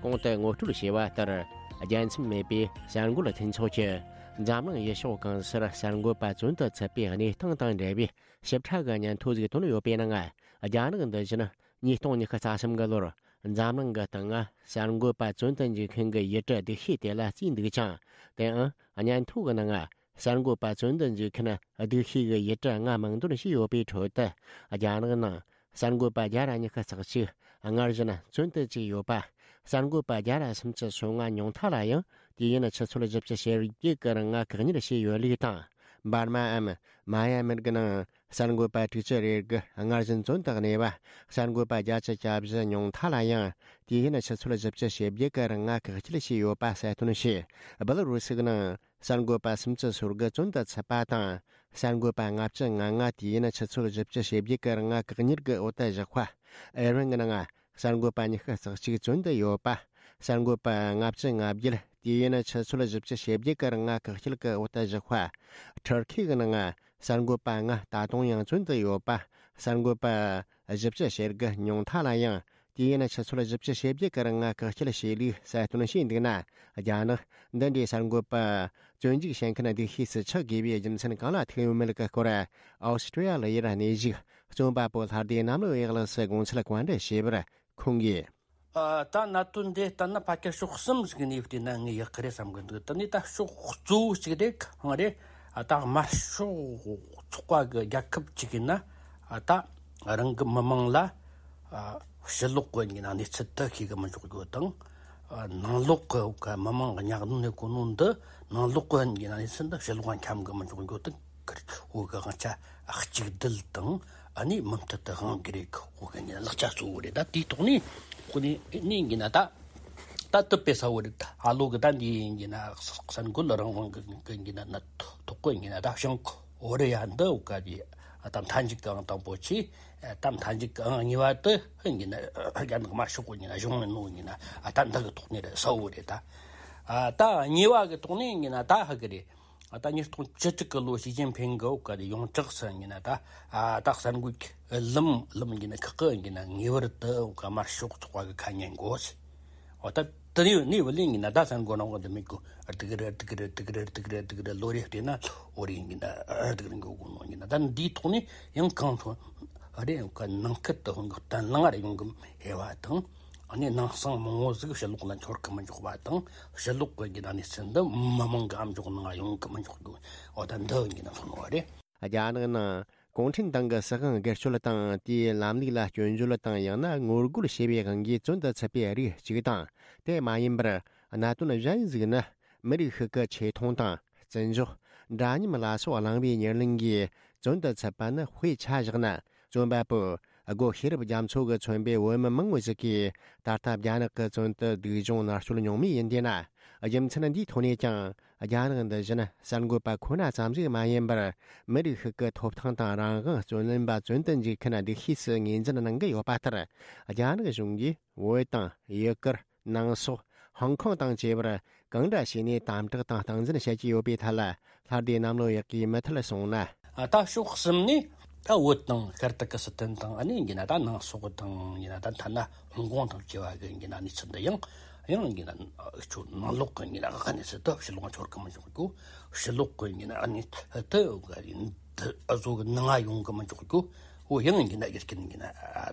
གོང་དུ་ངོ་སྤྲོད་བྱས་པ་ལྟར། རྒྱལ་མཚམས་མེད་པའི་གསར་འགོད་མཐུན་ཚོགས་ཀྱིས་འཛམ་གླིང་ཡུལ་ཕྱོགས་གང་སར་གསར་འགོད་པ་བཙོན་དུ་ཚུད་པའི་གནས་སྟངས་དང་འབྲེལ་བའི་ཞིབ་ཕྲ་གི་སྙན་ཐོ་ཞིག་བཏོན་ཡོད་པའི་ནང་། རྒྱ་ནག་འདི་བཞིན་ཉིས་སྟོང་ཉི་ཤུ་རྩ་གསུམ་གི་ལོར་འཛམ་གླིང་གི་སྟེང་ང་གསར་འགོད་པ་བཙོན་དུ་འཇུག་མཁན་གྱི་ཡུལ་གྲུ་སྡུག་ཤོས་དེ་ལ་བརྩིས་འདུག་ཅིང་། དེའང་སྙན་ཐོ་གི་ནང་ང་གསར་འགོད་པ་བཙོན་དུ་འཇུག་མཁན་སྡུག་ཤོས་ཀྱི་ཡུལ་གྲུ་ལྔ་མིང་འདོན་བྱས་ཡོད་པའི་ཁྲོད་དུ། རྒྱ་ནག་ནང་གསར་འགོད་པ་བརྒྱ་ར་ཉི་ཤུ་རྩ་གཅིག་སྔར་བཞིན་བཙོན་དུ་བཅུག་ཡོད་པ། གསར་འགོད་པ་བརྒྱ་ར་སུམ་ཅུ་སོ་ལྔ་ཉུང་མཐའ་ལ་ཡང་དུས་ཡུན་ཆུ་ཚོད་བཞི་བཅུ་ཞེ་བརྒྱད་ཀྱི་རིང་ང་བཀག་ཉར་བྱས་ཡོད་ལུགས་དང་། འབར་མའམ་མ་ཡ་མིར་གྱི་ནང་གསར་འགོད་པ་དྲུག་ཅུ་རེ་དགུ་སྔར་བཞིན་བཙོན་དུ་གནས་པ། གསར་འགོད་པ་བརྒྱད་ཅུ་གྱ་བཞི་ཉུང་མཐའ་ལ་ཡང་དུས་ཡུན་ཆུ་ཚོད་བཞི་བཅུ་ཞེ་བརྒྱད་ཀྱི་རིང་ང་བཀག་སྐྱིལ་བྱས་ཡོད་པ་གསལ་སྟོན་བྱས། སྦེ་ལ་རུ་སི་གི་ནང་གསར་འགོད་པ་སུམ་ཅུ་སོ་དགུ་བཙོན་དུ་ཚུད་པ་དང་། གསར་འགོད་པ་ལྔ་བཅུ་ང་ལྔ་དུས་ཡུན་ཆུ་ཚོད་བཞི་བཅུ་ཞེ་བརྒྱད་ཀྱི་རིང་ང་བཀག་ཉར་གྱི་འོག་ཏུ་བཞག་པ། ཨེ་རན་གྱི་ནང་གསར་འགོད་པ་ཉི་ཤུ་རྩ་གཅིག་བཙོན་དུ་ཡོད་པ། གསར་འགོད་པ་ལྔ་བཅུ་ང་བརྒྱད་དུས་ཡུན་ཆུ་ཚོད་བཞི་བཅུ་ཞེ་བརྒྱད་ཀྱི་རིང་ང་བཀག་སྐྱིལ་གྱི་འོག་ཏུ་བཞག་པ། ཐུར་ཁེ་གི་ནང་གསར་འགོད་པ་ལྔ་ད་དུང་ཡང་བཙོན་དུ་ཡོད་པ། གསར་འགོད་པ་བཞི་བཅུ་ཞེ་དགུ་ཉུང་མཐའ་ལ་ཡང་དུས་ཡུན་ཆུ་ཚོད་བཞི་བཅུ་ཞེ་བརྒྱད་ཀྱི་རིང་ང་བཀག་སྐྱིལ་བྱས་ལུགས་གསལ་སྟོན་བྱས་འདུག་ན། རྒྱ་ནག་འདི་འདྲའི་གསར་འགོད་པ་བཙོན་འཇུག་བྱེད་མཁན་སྡུག་ཤོས་སུ་ཆགས་དགོས་པའི་རྒྱུ་མཚན་གང་ལ་ཐུག་ཡོད་མེད་ཀྱི་སྐོར། ཨོ་སི་ཀྲི་ཡ་ལི་ཡར་གནས་བཞུགས་རྩོམ་པ་པོ་ལྷ་སྡེ་གནམ་ལོ་ཡག་ལགས་སུ་དགོངས་འཆར་བཀའ་འདྲི་བྱས་པར། ཁོང་གིས། ཨ། ད་གནད་དོན་འདི་ལྟར་ན་ཕལ་ཆེར་ཕྱོགས་གསུམ་ཟིག་ནས་བལྟས་ན་ངས་ཡག་གི་རེད་བསམ་གི་འདུག། དེ་ནས་ད་ཕྱོགས་གཙོ་བོ་གཅིག་དེ་གང་རེད། ཨ། ད་དམར་ཤོག་ཚོགས་པ་གི་རྒྱལ་ཁབ་གཅིག་ཡིན་ན། ཨ། ད་རང་གི་མི་མང་ལ། ཨ། ཕྱི་ལོགས་གི་ཡིན་ན་གནས་ཚུལ་དེ་ཤེས་གི་མི་འཇུག་རྒྱུ་དང་། ཨ། ནང་ལོགས་གི་མི་མང་གི་ཉག་གནོན་གོ་ནོ་འདི་ནང་ལོགས་གི་ཡིན་ན་གནས་ཚུལ་འདི་ཕྱི་ལོགས་འཁྱམ་གི་མི་འཇུག་རྒྱུ་དང་། འོ་གི་དབང་ཆ་གཅིག་སྒྲིལ་དང་། ཨ་ནི་མུ་མཐུད་དུ་དབང་གི་རེད། འོ་གི་ཡིན་ན་ལག་ཆ་གཙོ་བོ་རེད། ད་དེའི་ཐོག་ནས་ཁོ་ནས་ནས་ཡིན་ན་ད་ད་དུ་དཔེ་ས་བོ་རེད། ཨ་ལོ་གི་ད་འདི་ཡིན་ན་གསར་འགོད་རང་དབང་གི་ཡིན་ན་ཐོག་གི་ཡིན་ན་ད་བྱང་ཀོ་རི་ཡ་འདི་འོ་ག་གི་ད་མཐའ་མཇུག་གི་ཨང་དང་པོ་ཆེ། ད་མཐའ་མཇུག་གི་ཨང་གཉིས་པ་དེ་ཡིན་ན་རྒྱ་ནག་དམར་ཤོག་གི་ཡིན་ན་གཞུང་ཡིན་ནོ་ཡིན་ན། ཨ། ད་འདི་གི་ཐོག་ནས་རེད་ས་བོ་རེད། ད་ཨ་ད་གཉིས་པ་གི་ཐོག་ནས་ཡིན་ན་ད་ཧ་གི་རེད། ཨ། ད་ཉིས་སྟོང་བཅུ་དྲུག་གི་ལོ་ཞི་ཅིན་ཕིང་གི་འོ་ག་དེ་ཡོངས་གྲགས་སུ་ཡིན་ན་ད། ཨ། ད་གསར་འགོད་ཀྱི་ལམ་ལམ་ཡིན་ན་ཁག་གི་ཡིན་ན་ངེས་པར་དུ་འོ་ག་དམར་ཤོག་ཚོགས་པ་གི་ཁ་ཉན་དགོས། འོ་ད་དེ་ནས་ནས་བུ་ལོན་ཡིན་ན་ད་གསར་འགོད་རང་དབང་དུ་མེད་གོ། སྡུག་རེད་སྡུག་རེད་སྡུག་རེད་སྡུག་རེད་སྡུག་རེད་ལོ་རེ་བལྟས་ན་འོ་རེ་ཡིན་ན་སྡུག་རེད་འགོ་གོ་ནོ་ཡིན་ན། ད་འདིའི་ཐོག་ནས་ཡང་གང་ཐོན་རེད། འོ་ག་ནང་ཁུལ་དུ་འོ་ག་བརྟན་བརླིང་རེ་ཡོང་གི་ཧེ་བ་དང་། ཨ་ནི་ནང་གསང་མང་བོ་ཟིག་ཕྱི་ལོགས་ལ་འཆོར་གི་མི་འཇུག་པ་དང་། ཕྱི་ལོགས་གི་ཡིན་ན་གནས་ཚུལ་འདི་མི་མང་གི་ཨམ་ཅོག་ནང་ཡོང་གི་མི་འཇུག་རྒྱུ། འོ་ད་འདི་ཡིན་ན་མཚོན་བ་རེད། རྒྱ་ནག་ནང་གུང་ཁྲན་ཏང་གི་སྲིད་དབང་སྒེར་གཅོད་དང་། དེའི་ལམ་ལུགས་ལ་སྐྱོན་བརྗོད་དང་ཡང་ན་ངོ་རྒོལ་བྱས་པའི་དབང་གིས་བཙོན་དུ་ཚུད་པའི་རིགས་གཅིག་དང་། དེ་མ་ཡིན་པར་གནད་དོན་གཞན་ཞིག་ནི། མི་རིགས་ཤིག་གི་ཆེ་མཐོང་དང་བརྩི་འཇོག་འདྲ་མཉམ་ལ་སོགས་བླངས་པའི་ཉེར་ལེན་གྱིས་བཙོན་དུ་ཚུད་པ་ནི་དཔེ་ཆ་བཞག་ན། རྩོམ་པ་པོ་ སྒོ་ཤེས་རབ་རྒྱ་མཚོ་གིས་མཚོན་པའི་བོད་མི་མང་བོ་ཞིག་གིས་ད་ལྟ་རྒྱ་ནག་གི་བཙོན་དུ་སྡུག་སྦྱོང་མནར་གཅོད་མྱོང་མུས་ཡིན་དེས་ན། རྒྱུ་མཚན་འདིའི་ཐོག་ནས་ཀྱང་རྒྱ་ནག་འདི་བཞིན་གསར་འགོད་པ་ཁོ་ན་ཙམ་ཞིག་མ་ཡིན་པར། མི་རིགས་ཤིག་གི་ཐོབ་ཐང་དང་རང་དབང་རྩོད་ལེན་པ་བཙོན་དུ་འཇུག་མཁན་སྡུག་ཤོས་སུ་ངོས་འཛིན་གནང་གི་ཡོད་པ་ལྟར། རྒྱ་ནག་གཞུང་གིས་བོད་དང་ཡུ་གུར། ནང་སོག། ཧོང་ཀོང་དང་བཅས་པར་གང་འདྲ་བྱས་ནས་དམ་དྲག་དང་སྟངས་འཛིན་བྱེད་ཀྱི་ཡོད་པའི་ཐད་ལ། ལྷ་སྡེ་གནམ་ལོ་ཡག་གིས་མུ་མཐུད་གསུངས་ན། ད་ཕྱོགས་གསུམ་ནས་ད་བོད་དང་ཤར་ཏུར་ཀི་སི་ཐན་དང་། ཨ་ནི་ཡིན་ན་ད་ནང་སོག་དང་། ཡིན་ན་ད་ཐ་ན་ཧོང་ཀོང་དང་བཅས་པ་གི་ཡིན་ན་གནས་ཚུལ་འདི་ཡང་ཡང་ཡིན་ན་ཁྱོད་ནང་ལོགས་གི་ཡིན་ན་གནས་ཚུལ་དུ་ཕྱི་ལོགས་འཁྱོར་གི་མི་འཇུག་རྒྱུ། ཕྱི་ལོགས་གི་ཡིན་ན་གནས་ཚུལ་དུ་ཨ་བཟོ་གི་ནང་ང་ཡོང་གི་མི་འཇུག་རྒྱུ། འོ་ཡང་ཡིན་ན་རྒྱུ་རྐྱེན་ཡིན་ན་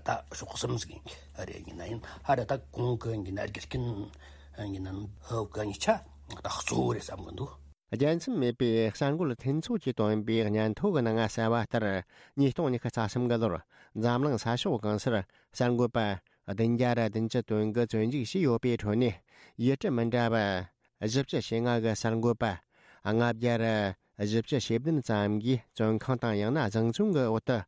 ད་ཕྱོགས་གསུམ་ཟིག་རེད། ཡིན་ན་ཡིན་ཧ་ར་ད་གོང་གི་ཡིན་ན་རྒྱུ་རྐྱེན་ཡིན་ན་ཧོ་གི་གཉིས་ཆ་ད་གཙོ་བོ་རེད་བསམ་གི་འདུག། རྒྱལ་མཚམས་མེད་པའི་གསར་འགོད་ལྷན་ཚོགས་ཀྱིས་བཏོན་པའི་སྙན་ཐོ་གི་ནང་གསལ་བ་ལྟར། ཉིས་སྟོང་ཉི་ཤུ་རྩ་གསུམ་གི་ལོར་འཛམ་གླིང་ས་ཕྱོགས་གང་སར་གསར་འགོད་པ་བདུན་བརྒྱ་ར་བདུན་ཅུ་དོན་དགུ་བཙོན་འཇུག་བྱས་ཡོད་པའི་ཁྲོད་ནས། ཡུལ་གྲུ་མི་འདྲ་བ་བཞི་བཅུ་ཞེ་ལྔ་གི་གསར་འགོད་པ་ལྔ་བརྒྱ་ར་བཞི་བཅུ་ཞེ་བདུན་ཙམ་གྱིས་བཙོན་ཁང་དང་ཡང་ན་བཟང་བཙོན་གྱི་འོག་ཏུ་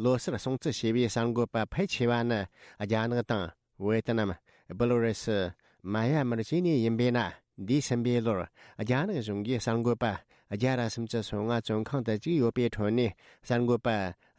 ལོ་སར་སྲུང་བརྩི་བྱས་པའི་གསར་འགོད་པ་ཕལ་ཆེ་བ་ནི་རྒྱ་ནག་དང་། ཝེ་ཏི་ནམ། སྦེ་ལ་རུ་སི། མ་ཡ་མར་བཅས་ནས་ཡིན་པས་ན། འདས་ཟིན་པའི་ལོར་རྒྱ་ནག་གཞུང་གིས་གསར་འགོད་པ་བརྒྱ་ར་སུམ་ཅུ་སོ་ལྔ་བཙོན་ཁང་དུ་བཅུག་ཡོད་པའི་ཁྲོད་ནས། གསར་འགོད་པ་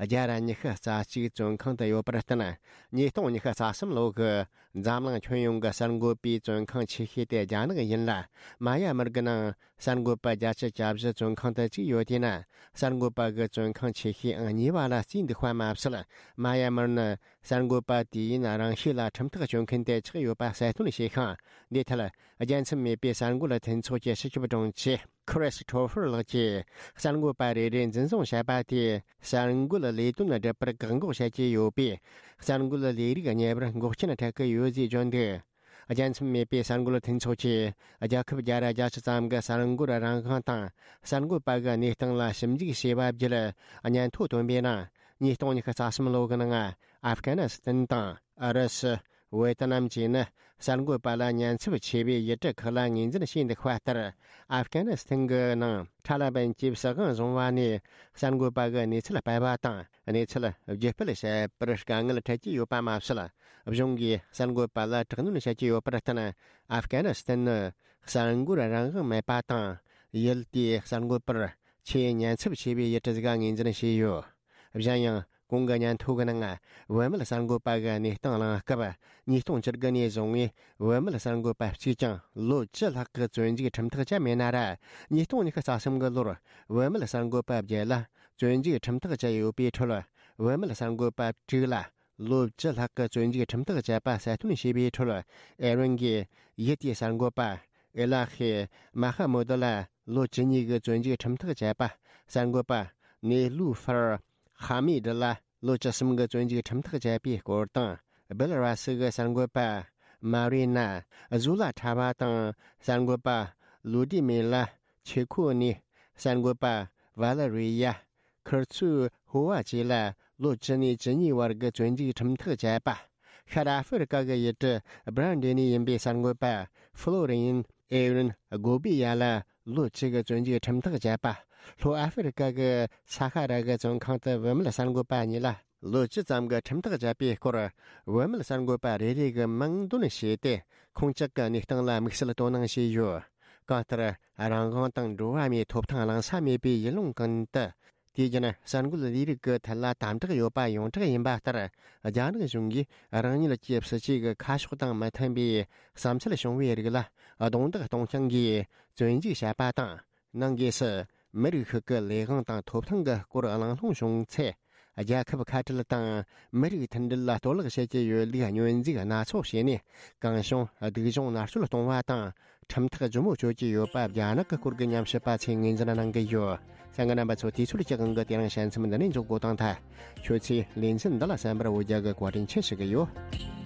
བརྒྱ་ར་ཉི་ཤུ་རྩ་གཅིག་བཙོན་ཁང་དུ་ཡོད་པར་བརྟེན། ཉིས་སྟོང་ཉི་ཤུ་རྩ་གསུམ་ལོ་གི་འཛམ་གླིང་ཁྱོན་ཡོངས་ཀྱི་གསར་འགོད་པའི་བཙོན་ཁང་ཆེ་ཤོས་དེ་རྒྱ་ནག་ཡིན་ལ། མ་ཡ་མར་གྱི་ནང་གསར་འགོད་པ་བརྒྱད་ཅུ་གྱ་བཞི་བཙོན་ཁང་དུ་བཅུག་ཡོད་དེས་ན། གསར་འགོད་པ་གི་བཙོན་ཁང་ཆེ་ཤོས་ཨང་གཉིས་པ་ལ་བརྩིས་འདུག་པ་མ་ཟད། མ་ཡ་མར་ནི་གསར་འགོད་པ་དུས་ཡུན་རིང་ཤོས་ལ་ཁྲིམས་ཐག་གཅོད་མཁན་དེ་ཆགས་ཡོད་པ་གསལ་སྟོན་བྱས་ཤིང་། འདིའི་ཐད་རྒྱལ་མཚམས་མེད་པའི་གསར་འགོད་ལྷན་ཚོགས་ཀྱི་སྤྱི་ཁྱབ་དྲུང་ཆེ་ཁྲིས་ཐོ་ཕར་ལགས་ཀྱིས། གསར་འགོད་པ་རེ་རེ་འཛིན་བཟུང་བྱས་པ་དེས་གསར་འགོད་ལས་དོན་སྒྲུབ་པར་བཀག་འགོག་བྱེད་ཀྱི་ཡོད་པས། གསར་འགོད་ལས་རིགས་གཉེར་བར་འགོག་རྐྱེན་འཕྲད་ཀྱི་ཡོད་ཅེས་བརྗོད་འདུག། རྒྱལ་མཚམས་མེད་པའི་གསར་འགོད་ལྷན་ཚོགས་ཀྱིས་རྒྱལ་ཁབ་བརྒྱ་ར་བརྒྱད་ཅུ་ཙམ་གྱི་གསར་འགོད་རང་དབང་དང་། གསར་འགོད་པ་གི་གནས་སྟངས་ལ་ཞིབ་འཇུག་བྱས་པ་བརྒྱུད། སྙན་ཐོ་བཏོན་པའི་ནང་། ཉིས་སྟོང་ཉི་ཤུ་རྩ་གསུམ་ལོ་གི་ནང་ཨབ་གྷ་ནི་སི་ཐན་དང་ཨུ་རུ་སུ། ཝེ་ཏི་ནམ་བཅས་ནི་གསར་འགོད་པ་ལ་ཉེན་ཚབས་ཆེ་བའི་ཡུལ་གྲུ་ཁག་ལ་ངོས་འཛིན་བྱས་འདུག་པ་ལྟར། ཨབ་གྷ་ནི་སི་ཐན་གྱི་ནང་ཐ་ལི་བན་གྱིས་སྲིད་དབང་བཟུང་བ་ནས་གསར་འགོད་པ་གི་གནས་ཚུལ་སྤེལ་བ་དང་། གནས་ཚུལ་བརྒྱུད་སྤེལ་བྱེད་པར་དཀའ་ངལ་འཕྲད་ཀྱི་ཡོད་པ་མ་ཟད། གཞུང་གིས་གསར་འགོད་པ་ལ་དྲག་གནོན་བྱེད་ཀྱི་ཡོད་པར་བརྟེན། ཨབ་གྷ་ནི་སི་ཐན་ནི་གསར་འགོད་རང་དབང་མེད་པ་དང་། ཡུལ་དེའི་གསར་འགོད་པར་ཆེས་ཉེན་ཚབས་ཆེ་བའི་ཡུལ་གྲུ་ཟིག་ངོས་འཛིན་བྱས་ཡོད། གཞན་ཡང་། གོང་གི་སྙན་ཐོ་གི་ནང་བུད་མེད་གསར་འགོད་པ་གི་གནས་སྟངས་གླེང་སྐབས། ཉིས་སྟོང་བཅུ་དགུ་ནས་བཟུང་བའི་བུད་མེད་གསར་འགོད་པ་གཅིག་ཀྱང་ལོ་བཅུ་ལྷག་གི་བཙོན་འཇུག་ཁྲིམས་ཐག་བཅད་མེད་ན་ར། ཉིས་སྟོང་ཉི་ཤུ་རྩ་གསུམ་གི་ལོར་བུད་མེད་གསར་འགོད་པ་བརྒྱད་ལ་བཙོན་འཇུག་ཁྲིམས་ཐག་བཅད་ཡོད་པའི་ཁྲོད། བུད་མེད་གསར་འགོད་པ་དྲུག་ལ་ལོ་བཅུ་ལྷག་གི་བཙོན་འཇུག་ཁྲིམས་ཐག་བཅད་པ་གསལ་སྟོན་བྱས་པའི་ཁྲོད། ཨེ་རན་གྱི་ཡུལ་དེའི་གསར་འགོད་པ་ཨེ་ལ་ཧེ་མ་ཧ་མུ་དུ་ལ་ལོ་བཅུ་གཉིས་ཀྱི་བཙོན་འཇུག་ཁྲིམས་ཐག་བཅད་པ། གསར་འགོད་པ་ནེ་ལུ་ཧྥར་ཧ་མི་དི་ལ་ལོ་བཅུ་གསུམ་གྱི་བཙོན་འཇུག་ཁྲིམས་ཐག་བཅད་པའི་སྐོར་དང་། སྦེ་ལ་ར་སི་གི་གསར་འགོད་པ་མ་རི་ན་ཟུ་ལ་ཁྲ་བ་དང་། གསར་འགོད་པ་ལུ་ཏི་མེ་ལ་ཆེ་ཁོ་ནི། གསར་འགོད་པ་ཝ་ལ་རི་ཡ་ཁིར་ཚུ་ཧོ་བ་བཅས་ལ་ལོ་བཅུ་ནས་བཅུ་གཉིས་བར་གྱི་བཙོན་འཇུག་ཁྲིམས་ཐག་བཅད་པ། ཤར་ཨ་ཧྥེ་རི་ཀ་གི་ཡུལ་གྲུ་སྦྲ་འདྲེ་ནས་ཡིན་པའི་གསར་འགོད་པ་ཧྥ་ལོ་རི་ཡན་ཨེ་རིན་གོ་བི་ཡ་ལ་ལོ་བཅུ་གི་བཙོན་འཇུག་ཁྲིམས་ཐག་བཅད་པ། ལྷོ་ཨ་ཧྥེ་རི་ཀ་གི་ས་ཧ་ར་གི་བཙོན་ཁང་དུ་བུད་མེད་གསར་འགོད་པ་གཉིས་ལ་ལོ་བཅུ་ཙམ་གྱི་ཁྲིམས་ཐག་བཅད་པའི་སྐོར། བུད་མེད་གསར་འགོད་པ་རེ་རེ་གི་མིང་འདོན་བྱས་ཏེ། ཁོང་ཅག་གི་གནས་སྟངས་ལ་དམིགས་བསལ་དོ་སྣང་བྱས་ཡོད། གང་ལྟར། རང་དབང་དང་འགྲོ་བ་མིའི་ཐོབ་ཐང་གླེང་ས་མེད་པའི་ཡུལ་ལུང་ཀུན་ཏུ། དུས་རྒྱུན་གསར་འགོད་ལས་རིགས་ཀྱི་ཐད་ལ་དམ་དྲག་ཡོད་པ་ཡོངས་གྲགས་ཡིན་པ་ལྟར། རྒྱ་ནག་གཞུང་གིས་རང་ཉིད་ཀྱི་སྲིད་བྱུས་ཀྱི་ཁ་ཕྱོགས་དང་མི་མཐུན་པའི་བསམ་ཚུལ་བྱུང་བའི་རིགས་ལ་རྡུང་རྡེག་གཏོང་རྐྱང་གིས་བཙོན་འཇུག་བྱས་པ་དང་། ནང་སྒོས་སུ་མི་རིགས་ཤིག་གི་ལས་དབང་དང་ཐོབ་ཐང་གི་སྐོར་གླེང་སློང་བྱུང་ཚེ། རྒྱལ་ཁབ་ཁ་བྲལ་དང་མི་རིགས་མཐུན་སྒྲིལ་ལ་གཏོར་བརླག་བྱེད་ཀྱི་ཡོད་ལུགས་བསྙོན་འཛུགས་སྣ་ཚོགས་བྱས་ནས། གང་བྱུང་སྡུག་སྦྱོང་མནར་གཅོད་གཏོང་བ་དང་། ཁྲིམས་ཐག་ལྗིད་མོ་གཅོད་ཀྱི་ཡོད་པ་རྒྱ་ནག་གི་སྐོར་གྱི་ཉམས་ཞིབ་པ་ཚོས་ངོས་འཛིན་གནང་གི་ཡོད། གསན་མཁན་རྣམ་པ་ཚོ། དུས་ཚོད་ཀྱི་དབང་གིས་དེ་རིང་བཤད་མཚམས་འདི་ནས་འཇོག་དགོས་དང་ཐལ། ཁྱོད་ཚོས་ལེ་ཚན་འདི་ལ་གསན་པར་འོ་བརྒྱལ་གྱི་བཀའ་དྲིན་ཆེ་ཞུ་གི་ཡོད།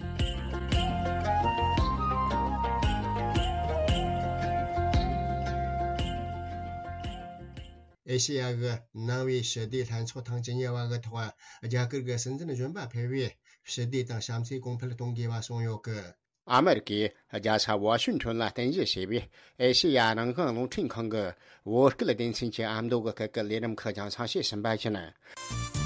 ཨེ་ཤེ་ཡ་གི་ནང་པའི་ཞི་བདེའི་ལྷན་ཚོགས་ཐེངས་བཅུ་གཉིས་པ་གི་ཐོག་རྒྱ་གར་གྱི་སྲིད་འཛིན་གཞོན་པ་ཕེབས་པས་ཞི་བདེ་དང་བྱམས་བརྩེའི་གོང་འཕེལ་གཏོང་དགོས་པ་གསུངས་ཡོད་གི། ཨ་མེ་རི་ཀས་རྒྱལ་ས་ཝ་ཤིང་ཊོན་ལ་རྟེན་གཞི་བྱས་པའི་ཨེ་ཤེ་ཡ་རང་དབང་རླུང་འཕྲིན་ཁང་གི་བོད་སྐད་སྡེ་ཚན་གྱི་ཨ་མདོ་གི་སྐད་ཀྱི་ལས་རིམ་ཁག་རྒྱང་སྲིང་བྱས་ཟིན་པ་ཡིན།